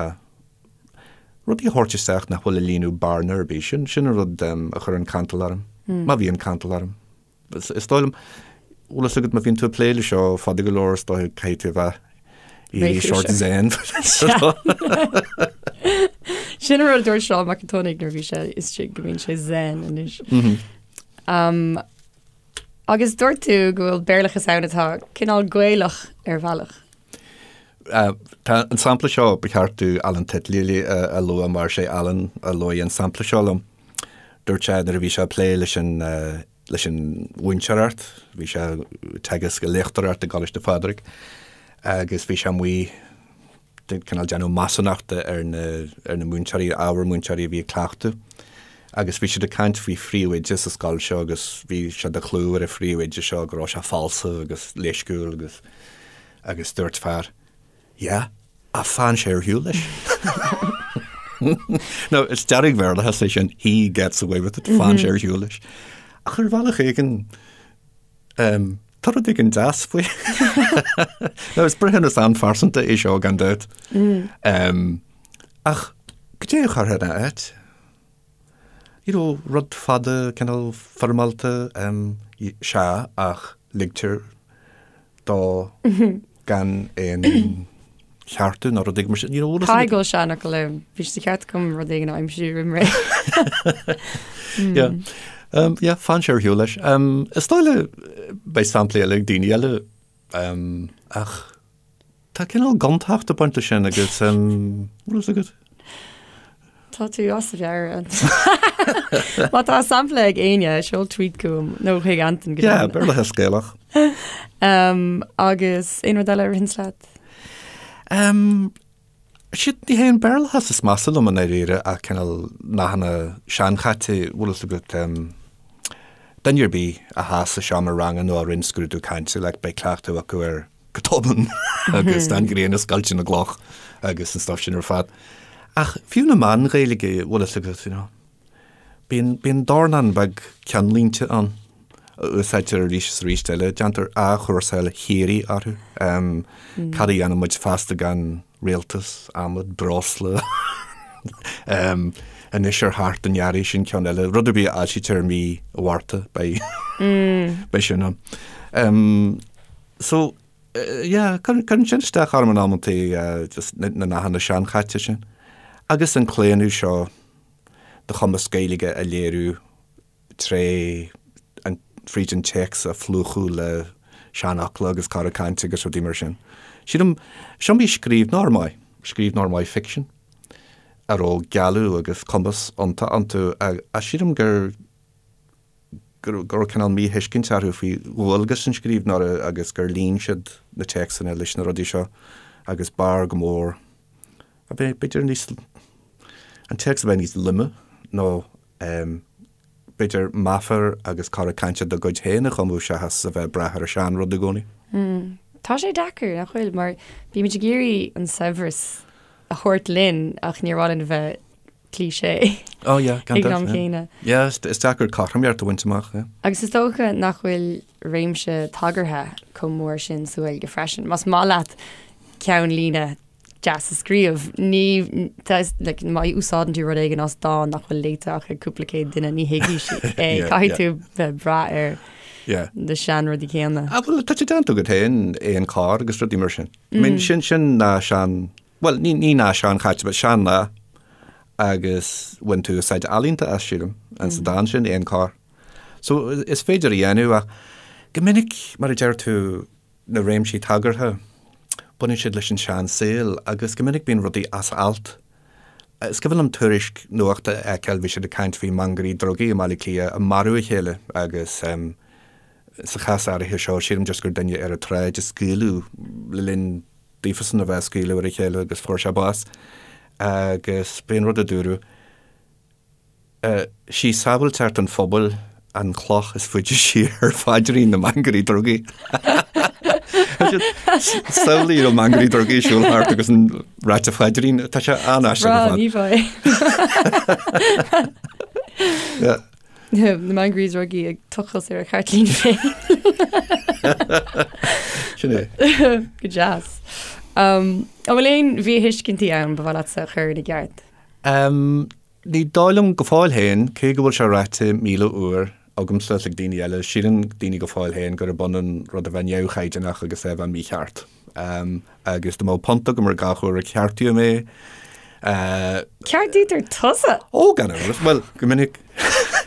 rudaí a thabhairt isteach nach bhfuil ag líonadh bearna ar bith. Sin, sin an rud um, a chuireann cantal orm, mm. má bhíonn cantal orm. Is dóigh liom, bhfuil fhios agat má bhíonn tú ag plé le seo fada go leor is dóigh caithfidh tú a bheith éirí sort zen. Sin an rud a dúirt Seán Mac an tSionnaigh nuair a bhí sé istigh go mbíonn sé zen anois. Um, agus dúirt tú go bhfuil Béarlachas ann atá cineál Gaelach ar bhealach. Uh, tá an sampla seo ba cheart do Alan Titley a, a lua mar sé Alan a luaigh an sampla seo liom. Dúirt sé nuair a bhí sé ag plé leis an uh, leis an mhúinteoireacht, bhí sé ag teagasc ag léachtóireacht i gColáiste Phádraig agus bhí sé amuigh cineál déanamh measúnachta ar na ar na múinteoirí, ábhar múinteoirí a bhí ag cleachtadh agus bhí siad ag caint faoi phríomhoide sa scoil seo agus bhí sé de chlú ar an phríomhoide seo go raibh sé falsa agus leisciúil agus agus dúirt fear Yeah, ach faigheann sé ar shiúl leis. Now, is dearg-Bhéarlachas é sin, he gets away with it, faigheann sé ar shiúl leis. Ach ar bhealach éigin, um, tá rud éigin deas faoi. Now, is breithiúnas an-phearsanta é seo gan dabht. Um, ach goidé a chuirfeá ina áit? You know, rud fada, cineál foirmeálta, um, sea, ach ligtear dó gan aon cheartú nó rud éigin mar sin. You know, bhfuil fhios agat? Caithfidh go bhfuil seanfhocal ann. Bhí sé de cheart agam rud éigin a aimsiú roimh ré. Yeah. Um, yeah, faigheann sé ar shiúl leis. Um, is dóigh le beidh samplaí eile ag daoine eile, um, ach Tá cineál gontacht ag baint leis sin agus bhfuil fhios agat? Tá tú as a mheabhair. Má tá sampla ag éinne, seol tweet chugam nó chuig Anton go Yeah, Béarlachas Gaelach. Um, agus aon rud eile a ritheanns leat? Um, siad ní hé an Béarlachas is measa liom i ndáiríre ach cineál nathanna seanchaite, bhfuil fhios agat, um, duine ar bith a thá sa seomra ranga nó a rinne scrúdú cainte, like, beidh cleachtadh acu ar go tobann agus an ghrian ag scoilteadh na gcloch agus an stuff sin ar fad. Ach fiú na meáin Ghaeilge, bhfuil fhios agat, you know, bíonn, bíonn dornán beag ceannlínte ann a úsáidtear arís is arís eile, déantar athchúrsáil shíoraí orthu. Um, Cad a dhéanfaidh muid feasta gan rialtas, adhmad, breosla, um, anois ar theacht an earraigh sin ceann eile, rud ar bith a fhoilsítear i mí Mhárta, beidh, beidh sin ann. Um, So, yeah, cuireann sin isteach orm in amantaí, just na nathanna seanchaite sin. Agus an claonadh seo do chumas Gaeilge a léiriú tré an, fríd an téacs a phlúchadh le seanfhocla agus cora cainte agus rudaí mar sin. Sílim, is iomaí scríbhneoir maith, scríbhneoir maith ficsin, a raibh gealladh agus cumas iontach iontu ach sílim gur, go raibh cineál míthuiscint orthu faoi dhualgas an scríbhneora agus gur líon siad na téacsanna leis na rudaí seo agus b'fhearr go mór a bheith b'fhéidir níos, an téacs a bheith níos loime nó b'fhéidir meafair agus cora cainte dá gcuid féin a chumadh seachas a bheith ag brath ar an seanrud i gcónaí. Tá sé deacair, nach bhfuil, mar bímid ag iarraidh an saibhreas a thabhairt linn ach níor mhaith linn a bheith cliché Oh yeah, gan ag an am céanna. Yeah, is deacair cothromaíocht a bhaint amach, yeah. Agus is dócha nach bhfuil réimse tagartha chomh mór sin sa Ghaeilge freisin. Más maith leat ceannlíne deas a scríobh, ní, like, má úsáideann tú rud éigin as dán nach bhfuil léite ach ag cúpla céad duine, ní thuigfidh siad é. Caithfidh tú bheith ag brath ar. Na seanrudaí céanna. Ah, bhuel, tá sé déanta agat féin, aon carr agus rudaí mar sin. I mean, sin, sin nath sean, bhuel, ní, ní nath seanchaite, but sean-nath agus bhain tú úsáid ealaíonta as, sílim, an sa dán sin, aon carr. So, is féidir a dhéanamh ach go minic, mar a deir tú, na réimsí tagartha, baineann siad leis an seansaol agus go minic bíonn rudaí as alt. Is cuimhin liom tuairisc nuachta a fheiceáil, bhí siad ag caint faoi mhangairí drugaí i mBaile Átha Cliath ag marú a chéile agus sa chás áirithe seo, sílim just gur duine ar an tsráid a scaoileadh le linn daofasan a bheith ag scaoileadh ar a chéile agus fuair sé bás. Agus b'é an rud a dúradh. Sí sábháilteacht an phobail an chloch is faide siar ar phaidrín na mangairí drugaí. Samhlaigh na mangairí drugaí ag siúl thart agus ag ráit a phaidrín, tá sé an-aisteach ar fad. Ní bheidh. Na mangairí drugaí ag tochailt ar a gceirtlín féin. Sin é. Go deas. An bhfuil aon mhíthuiscintí ann ba mhaith leatsa a chur ina gceart? Ní dóigh liom go fóill féin, cé go bhfuil sé ráite 1,000 uair agamsa is ag daoine eile, síleann daoine go fóill féin gurb ionann rud a bheith neamhchaighdeánach agus é a bheith mícheart. Agus dá mbeadh punt agam ar gach uair a ceartaíodh mé, Ceartaítear tusa? Ó, gan amhras. Bhuel, go minic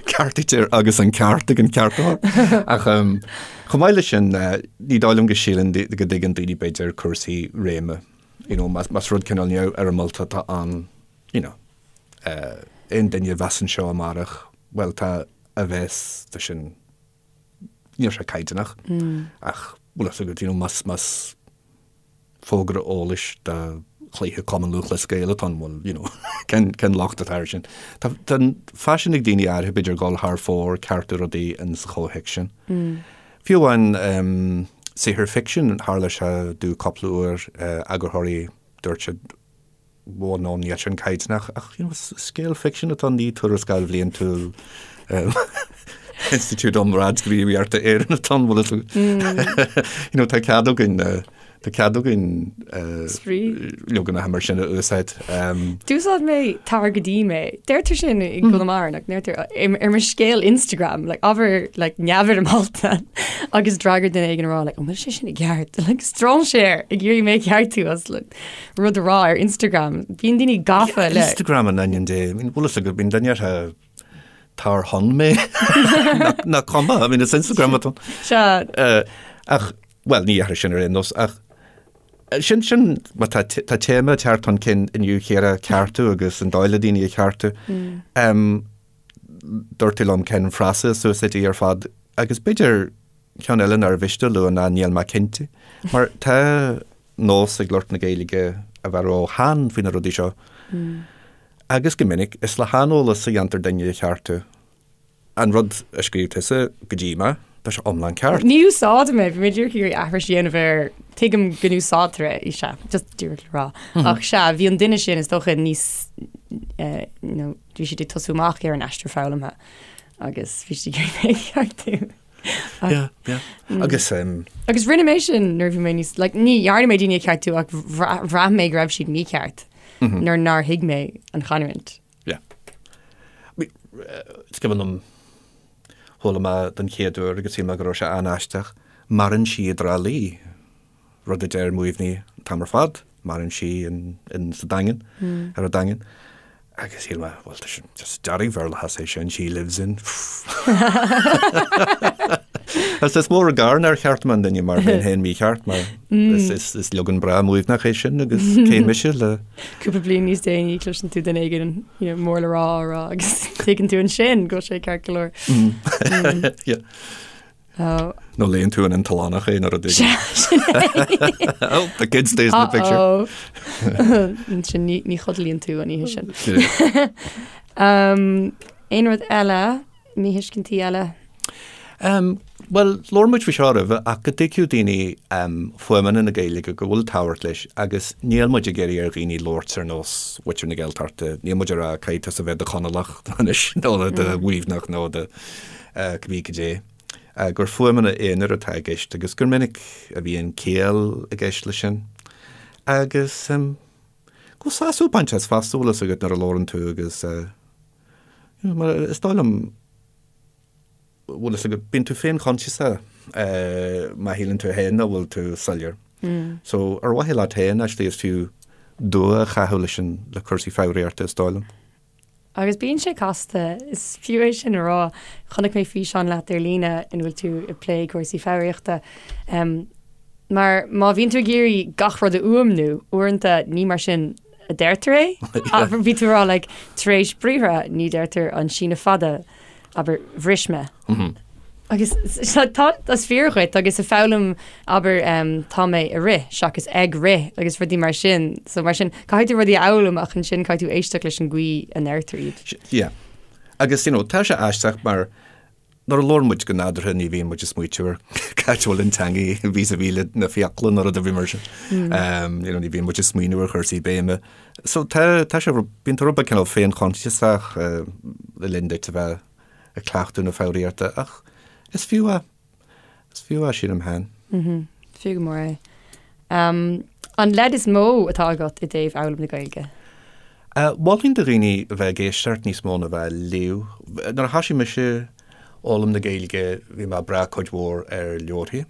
ceartaítear agus an ceart ag an ceartaitheoir. Ach chomh maith leis sin, ní dóigh liom go síleann, go dtuigeann daoine b'fhéidir cúrsaí réime. You know, más rud cineál neamhfhoirmeálta atá ann, you know, aon duine a bheas anseo amárach, bhuel tá a bheas, tá sin, níl sé caighdeánach, ach bhfuil fhios agat, you know, más, más fógra eolais do chluiche Cumann Lúthchleas Gael atá ann, bhuel, you know, cén, cén locht atá air sin? Tá, tá an faisean ag daoine áirithe b'fhéidir dul thar fóir, ceartú rudaí in sa chomhthéacs sin. Fiú amháin saothar ficsin, tharla sé domh cúpla uair, eagarthóirí, dúirt siad, bhuel no, níl sin caighdeánach, ach you know, is scéal ficsin atá ann, ní tuarascáil bhliantúil Institiúid um Radghníomhaíochta Éireann atá ann, bhfuil fhios agat. You know, tá cead againn, tá cead againn Spraoi. leaganacha mar sin a úsáid. D'úsáid mé tar go dtí mé. Deirtear sin i gConamara, like, deirtear ar mo scéal Instagram, like, ábhar like, neamhfhoirmeálta agus d'fhreagair duine éigin a rá, like, an bhfuil sé sin i gceart? Like, strainséir ag iarraidh mé a cheartú as like, rud a rá ar Instagram. Bíonn daoine gafa le. Instagram in ainm Dé. I mean, bhfuil fhios agat, bíonn duine orthu tar chun mé. Nach cuma, I mean, is Instagram atá. Sea. Ach, bhuel, ní dhéarfainn sin ar aon nós, ach sin, sin, má tá, tá téama ag teacht chun cinn inniu Chiara, ceartú agus an dóigh le daoine a cheartú. Dúirt tú liom cén frása is úsáidí ar fad agus b'fhéidir ceann eile nár mhiste a lua ná níl mé cinnte. Mar tá nós ag lucht na Gaeilge a bheith ró-theann faoi na rudaí seo. Agus go minic, is le haineolas a dhéantar duine a cheartú. An rud a scríobh tusa go dtí mé, tá sé iomlán ceart. Ní úsáidim é, bhí mé díreach ag iarraidh aithris a dhéanamh air, tuigim go n-úsáidtear é, sea, just díreach le rá. Ach sea, bhí an duine sin is dócha níos, you know, bhí siad ag tosú amach ar an aistear foghlamtha agus bhí siad ag iarraidh mé a cheartú. Yeah, yeah. Agus Agus rinne mé sin nuair a bhí mé níos, like, ní dhearna mé daoine a cheartú ach bhraith mé go raibh siad mícheart nuair nár thuig mé an chanúint. Yeah. Is cuimhin liom chuala mé den chéad uair agus shíl mé go raibh sé an-aisteach, maireann sí i dTrá Lí. rud a deir Muimhnigh an t-am ar fad, maireann sí in, in sa Daingean, ar an Daingean. Agus shíl mé, bhuel, tá sin just dearg-Bhéarlachas é sin, she lives in. Agus is mór an gar nár cheartaigh mé an duine mar bheinn féin mícheart, mar is, is, is leagan breá Muimhneach é sin agus cé mise le... Cúpla bliain níos déanaí cloiseann tú duine éigin you know, mór le rá á rá agus tuigeann tú ansin go bhfuil sé ceart go leor. Yeah. Nó léann tú in An tOileánach é nuair a Sea, sin é. Oh, the kid stays in the picture. Uh-oh. Ansin ní, ní chodlaíonn tú an oíche sin. Um, aon rud eile, míthuiscintí eile? Um, Bhuel, labhair muid faoi seo roimhe ach go dtuigfeadh daoine um, fuaimeanna na Gaeilge go bhfuil tábhacht leis agus níl muid ag iarraidh ar dhaoine labhairt ar nós mhuintir na Gaeltachta, níl muid ag rá caithfidh tusa bheith i do Chonallach anois nó i do Mhuimhneach nó do cibé cad é, gur fuaimeanna aonair atá i gceist agus gur minic a bhíonn ciall i gceist leis sin. Agus go bhfuil sásamh ag baint as fosta, bhfuil fhios agat nuair a labhrann tú agus you know, mar is dóigh liom bhfuil fhios agat, bíonn tú féinchoinsiasach má shíleann tú féin nach bhfuil tú soiléir. So ar mhaithe leat féin, actually, is fiú dua a chaitheamh leis an, le cúrsaí foghraíochta, is dóigh liom. Agus bíonn sé casta, is fiú é sin a rá. Chonaic mé físeán leat ar líne ina bhfuil tú ag plé cúrsaí foghraíochta. Mar má bhíonn tú ag iarraidh gach rud a fhuaimniú, uaireanta ní mar sin a deirtear é. Bhí tú ag rá like, tar éis briathra ní deirtear an síneadh fada, abair, bhris mé. Agus tá, is fíor dhuit agus ag foghlaim, abair, tá mé ag rith seachas ag rith agus rudaí mar sin. So mar sin, caithfidh tú rudaí a fhoghlaim ach ansin caithfidh tú éisteacht leis an gcaoi a ndeirtear iad. Yeah. Agus, you know, tá sé aisteach mar nuair a labhrann muid go nádúrtha ní bhíonn muid ag smaoitiú ar cá háit a bhfuil an teanga vis-a-vis le na fiacla nó rud ar bith mar sin. You know, ní bhíonn muid ag smaoineamh ar chúrsaí béime. So tá, tá sé, bíonn tú rud beag cineál féinchoinsiasach le linn duit a bheith ag cleachtadh na foghraíochta ach is fiú é. Is fiú é, sílim féin. Mhm. Fiú go mór é. Um, an leid is mó atá agat i dtaobh fhoghlaim na Gaeilge? Uh, mholfainn do dhaoine a bheith ag éisteacht níos mó ná a bheith ag léamh. Nuair a thoisigh mise foghlaim na Gaeilge bhí mé ag brath cuid mhór ar leabharthaí.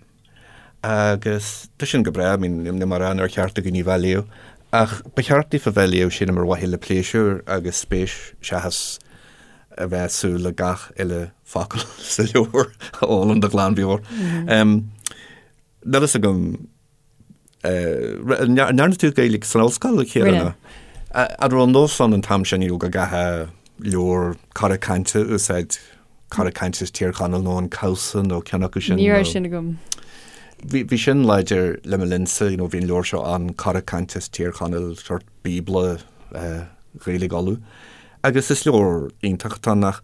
Agus tá sin go breá, I mean, níl mé ag rá nár cheart do dhaoine bheith ag léamh, ach ba cheart daofa bheith ag léamh, sílim, ar mhaithe le pléisiúr agus spéis seachas a bheith ag súil le gach uile focal sa leabhar a fhoghlaim de ghlanmheabhair. Níl fhios agam, an ndearna tú Gaeilge san ollscoil, a Chiara? Rinne. An raibh an nós ann an t-am sin, you know, go gcaithfeá leabhar cora cainte a úsáid Cora Cainte as Tír Chonaill nó an Cabhsa nó ceann acu sin. Ní raibh sin agam. Bhí, bhí sin láidir le mo linnsa, you know, bhí an leabhar seo ann, Cora Cainte as Tír Chonaill, sórt bíobla eh, Ghaeilge Uladh. Agus is leabhar iontach atá ann ach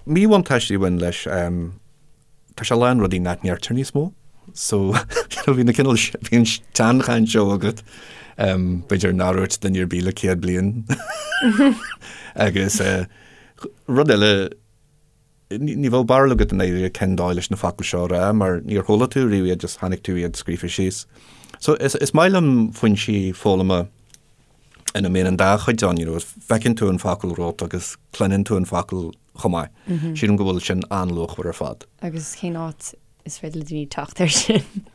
míbhuntáiste a bhain leis, em, tá sé lán rudaí nach ndeirtear níos mó. So, bhí na cineál, bhí an tseanchaint seo agat, em, b'fhéidir nár dhúirt duine ar bith le 100 bliain. Agus eh, Rud eile, ní bheadh barúil agat i ndáiríre cén dóigh leis na focail seo a rá mar níor chuala tú riamh iad, just chonaic tú iad scríofa síos. So is, is maith liom foinsí foghlama ina mbíonn an dá chuid ann, you know, feiceann tú an focal romhat agus cluineann tú an focal chomh maith. Sílim go bhfuil sin an-luachmhar ar fad. Agus cén áit is féidir le daoine teacht air sin?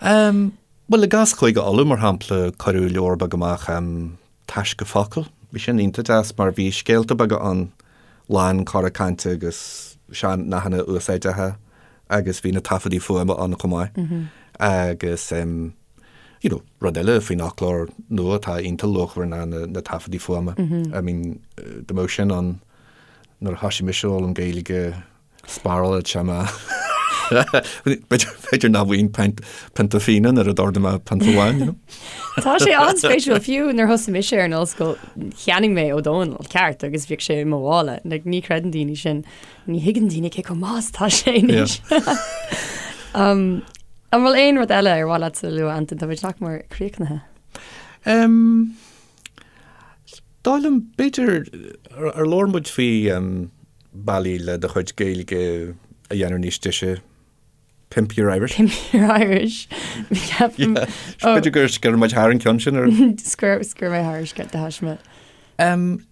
Um, bhuel, i gcás Chúige Uladh, mar shampla, cuireadh leabhar beag amach um, Taisce Focal. Bhí sin iontach deas mar bhí scéalta beaga ann, lán cora cainte agus sean-nathanna úsáideacha agus bhí na taifeadaí fuaime ann chomh maith. Agus em you know rud eile faoin fhoclóir nua atá iontach luachmhar ná na na taifeadaí fuaime. I mean dá mbeadh sin ann nuair a thoisigh mise ag foghlaim Gaeilge Spárálfadh sé mé. B'fhéidir nach bhfaighinn pionta fíona nuair a d'ordaigh mé pionta amháin, you know. Tá sé an-spéisiúil, fiú nuair thosaigh mise ar an ollscoil, cheannaigh mé Ó Dónaill, ceart, agus bhíodh sé i mo mhála. Like, ní chreideann daoine sin, ní thuigeann daoine cé chomh maith is atá sé anois. Um, an bhfuil aon rud eile ar mhaith leat a lua, Antain? Tá muid nach mór críochnaithe. Um, dóigh liom, b'fhéidir, ar labhair muid faoi um, bealaí le do chuid Gaeilge a dhéanamh níos deise, Pimp your Irish. Pimp your Irish. Ceapaim. B'fhéidir gur sciorr muid thar an ceann sin ar. Sciorr mé thar de thaisme.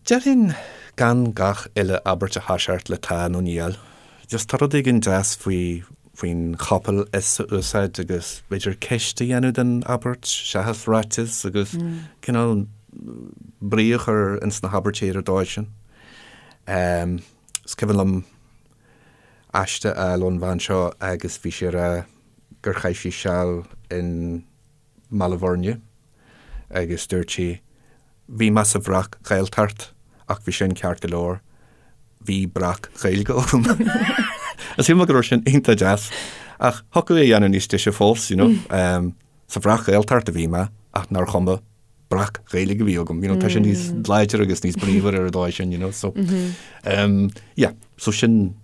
Déarfainn gan gach uile abairt a thoiseacht le tá nó níl. Just tá rud éigin deas faoi faoin chopail is a úsáid agus b'fhéidir ceist a dhéanamh den abairt seachas ráiteas agus cineál brí a chur ins na habairtí ar an dóigh sin. Is cuimhin liom aiste a fháil ón bhean seo agus bhí sí ag rá gur chaith sí seal in mBaile Bhuirne agus dúirt sí, bhí mé sa bhreac-Ghaeltacht ach bhí sin ceart go leor, bhí breac-Ghaeilge agam. Is shíl mé go raibh sin iontach deas ach thiocfadh é a dhéanamh níos deise fós, you know. Sa bhreac-Ghaeltacht a bhí mé ach nár chuma. breac-Ghaeilge a bhí agam, you know, tá sé níos láidre agus níos bríomhar ar an dóigh sin, you know, so, um, yeah, so sin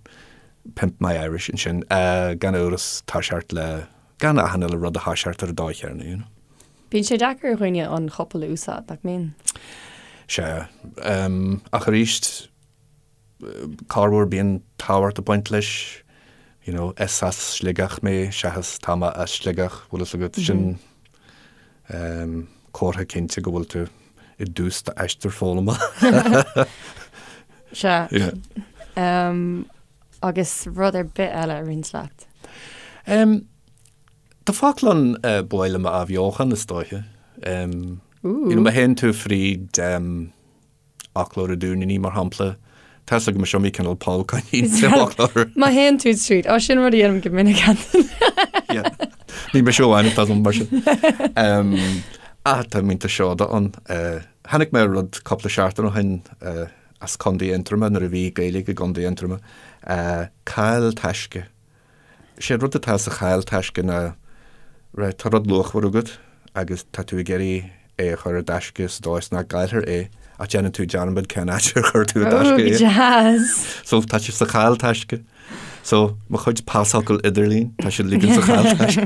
Pimp My Irish ansin, uh, gan amhras toiseacht le, gan achan uile rud a thoiseacht ar an dóigh chéanna, you know. Bíonn sé deacair ar dhaoine an chopail a úsáid, nach mbíonn? Sea, um, ach arís, corruair bíonn tábhacht ag baint leis, you know, is as Sligeach mé seachas tá mé as Sligeach, bhfuil fhios agat, sin um, comhartha cinnte go bhfuil tú i dtús d'aistear foghlama. Sea. Yeah. Um, Agus rud ar bith eile a roinnt leat? Tá focal ann ba mhaith liom a athbheochan, is dóiche. You know, má théann tú fríd fhoclóir an Dúinnínigh, mar shampla, tá 'fhios agam is iomaí cineál poll coinín sa bhfoclóir. Má théann tú tríd, ó sin rud a dhéanaim go minic Antain. Yeah. Ní mise amháin atá mar sin. Ach tá mílte seoda ann. Tháinig mé ar rud cúpla seachtain ó shin as Contae Aontroma nuair a bhí Gaeilge i gContae Aontroma, caill taisce. Sé an rud atá sa chaill taisce ná, right, tá rud luachmhar agat agus tá tú ag iarraidh é a chur i dtaisce sa dóigh is nach gcaillfear é ach déanann tú dearmad cén áit ar chuir tú i dtaisce é. Deas! So tá sé sa chaill taisce. So mo chuid pasfhocal idirlín, tá siad uilig sa chaill taisce.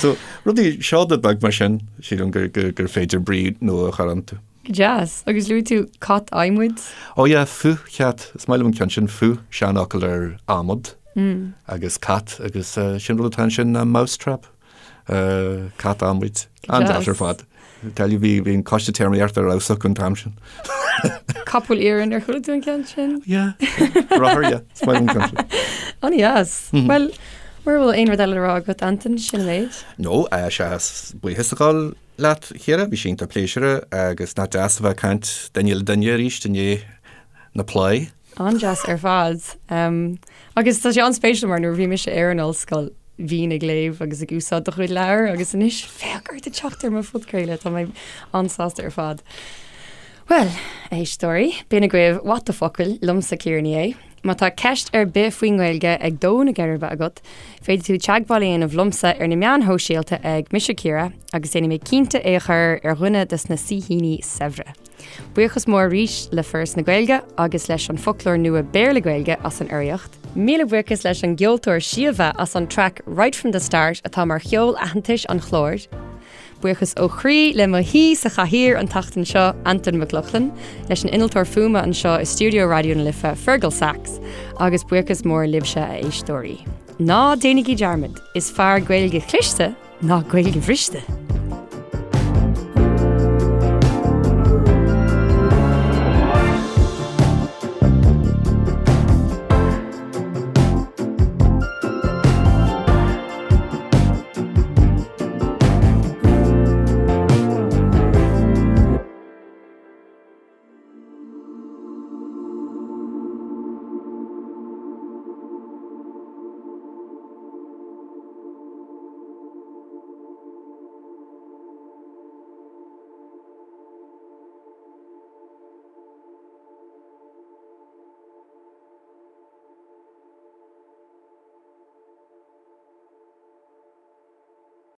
So rudaí seoda beag mar sin, sílim gur, gur, gur féidir brí nua a chur iontu. Go deas. Agus luaigh tú cat adhmaid? Ó yeah, futhchat. Is maith liom an ceann sin, futh, seanfhocal ar adhmad, agus cat, agus sin rud atá ansin ná mousetrap, cat adhmaid. An-deas ar fad. Tell you, bhí bhí an coiste téarmaíochta ar fheabhas acu an t-am sin. Capall iarainn, ar chuala tú an ceann sin? Yeah. Rothar, yeah. Is maith liom an ceann sin. An-deas. Bhuel, mura bhfuil aon rud eile le rá agat, Antain, sin an méid. No, seachas buíochas a ghabháil leat, a Chiara, bhí sé iontach pléisiúrtha agus nach deas a bheith ag caint duine le duine arís i ndiaidh na plé. An-deas ar fad. Agus tá sé an-spéisiúil mar nuair a bhí mise ar an ollscoil bhínn ag léamh agus ag úsáid do chuid leabhar agus anois féach ort ag teacht ar mo phodchraoladh, tá mé an-sásta ar fad. Bhuel, a éisteoirí, b'in agaibh What the Focal liomsa Ciara Ní É. Má tá ceist ar bith faoin nGaeilge ag dó na geirbe agat, féadfaidh tú teagmháil a dhéanamh liomsa ar na meáin shóisialta ag Mise Ciara agus déanfaidh mé cinnte é a chur ar dhuine de na saoithíní saibhre. Buíochas mór arís le Foras na Gaeilge agus leis an Foclóir Nua Béarla-Gaeilge as an urraíocht. Míle buíochas leis an gceoltóir Síomha as an traic Right From The Start atá mar cheol aitheantais an chláir. Buíochas ó chroí le mo shaoi sa chathaoir an tseachtain seo, Antain Mac Lochlainn, leis an innealtóir fuaime anseo i stiúideo Raidió na Life, Fergal Sachs, agus buíochas mór libhse, a éisteoirí. Ná déanaigí dearmad, is fearr Gaeilge chliste ná Gaeilge bhriste!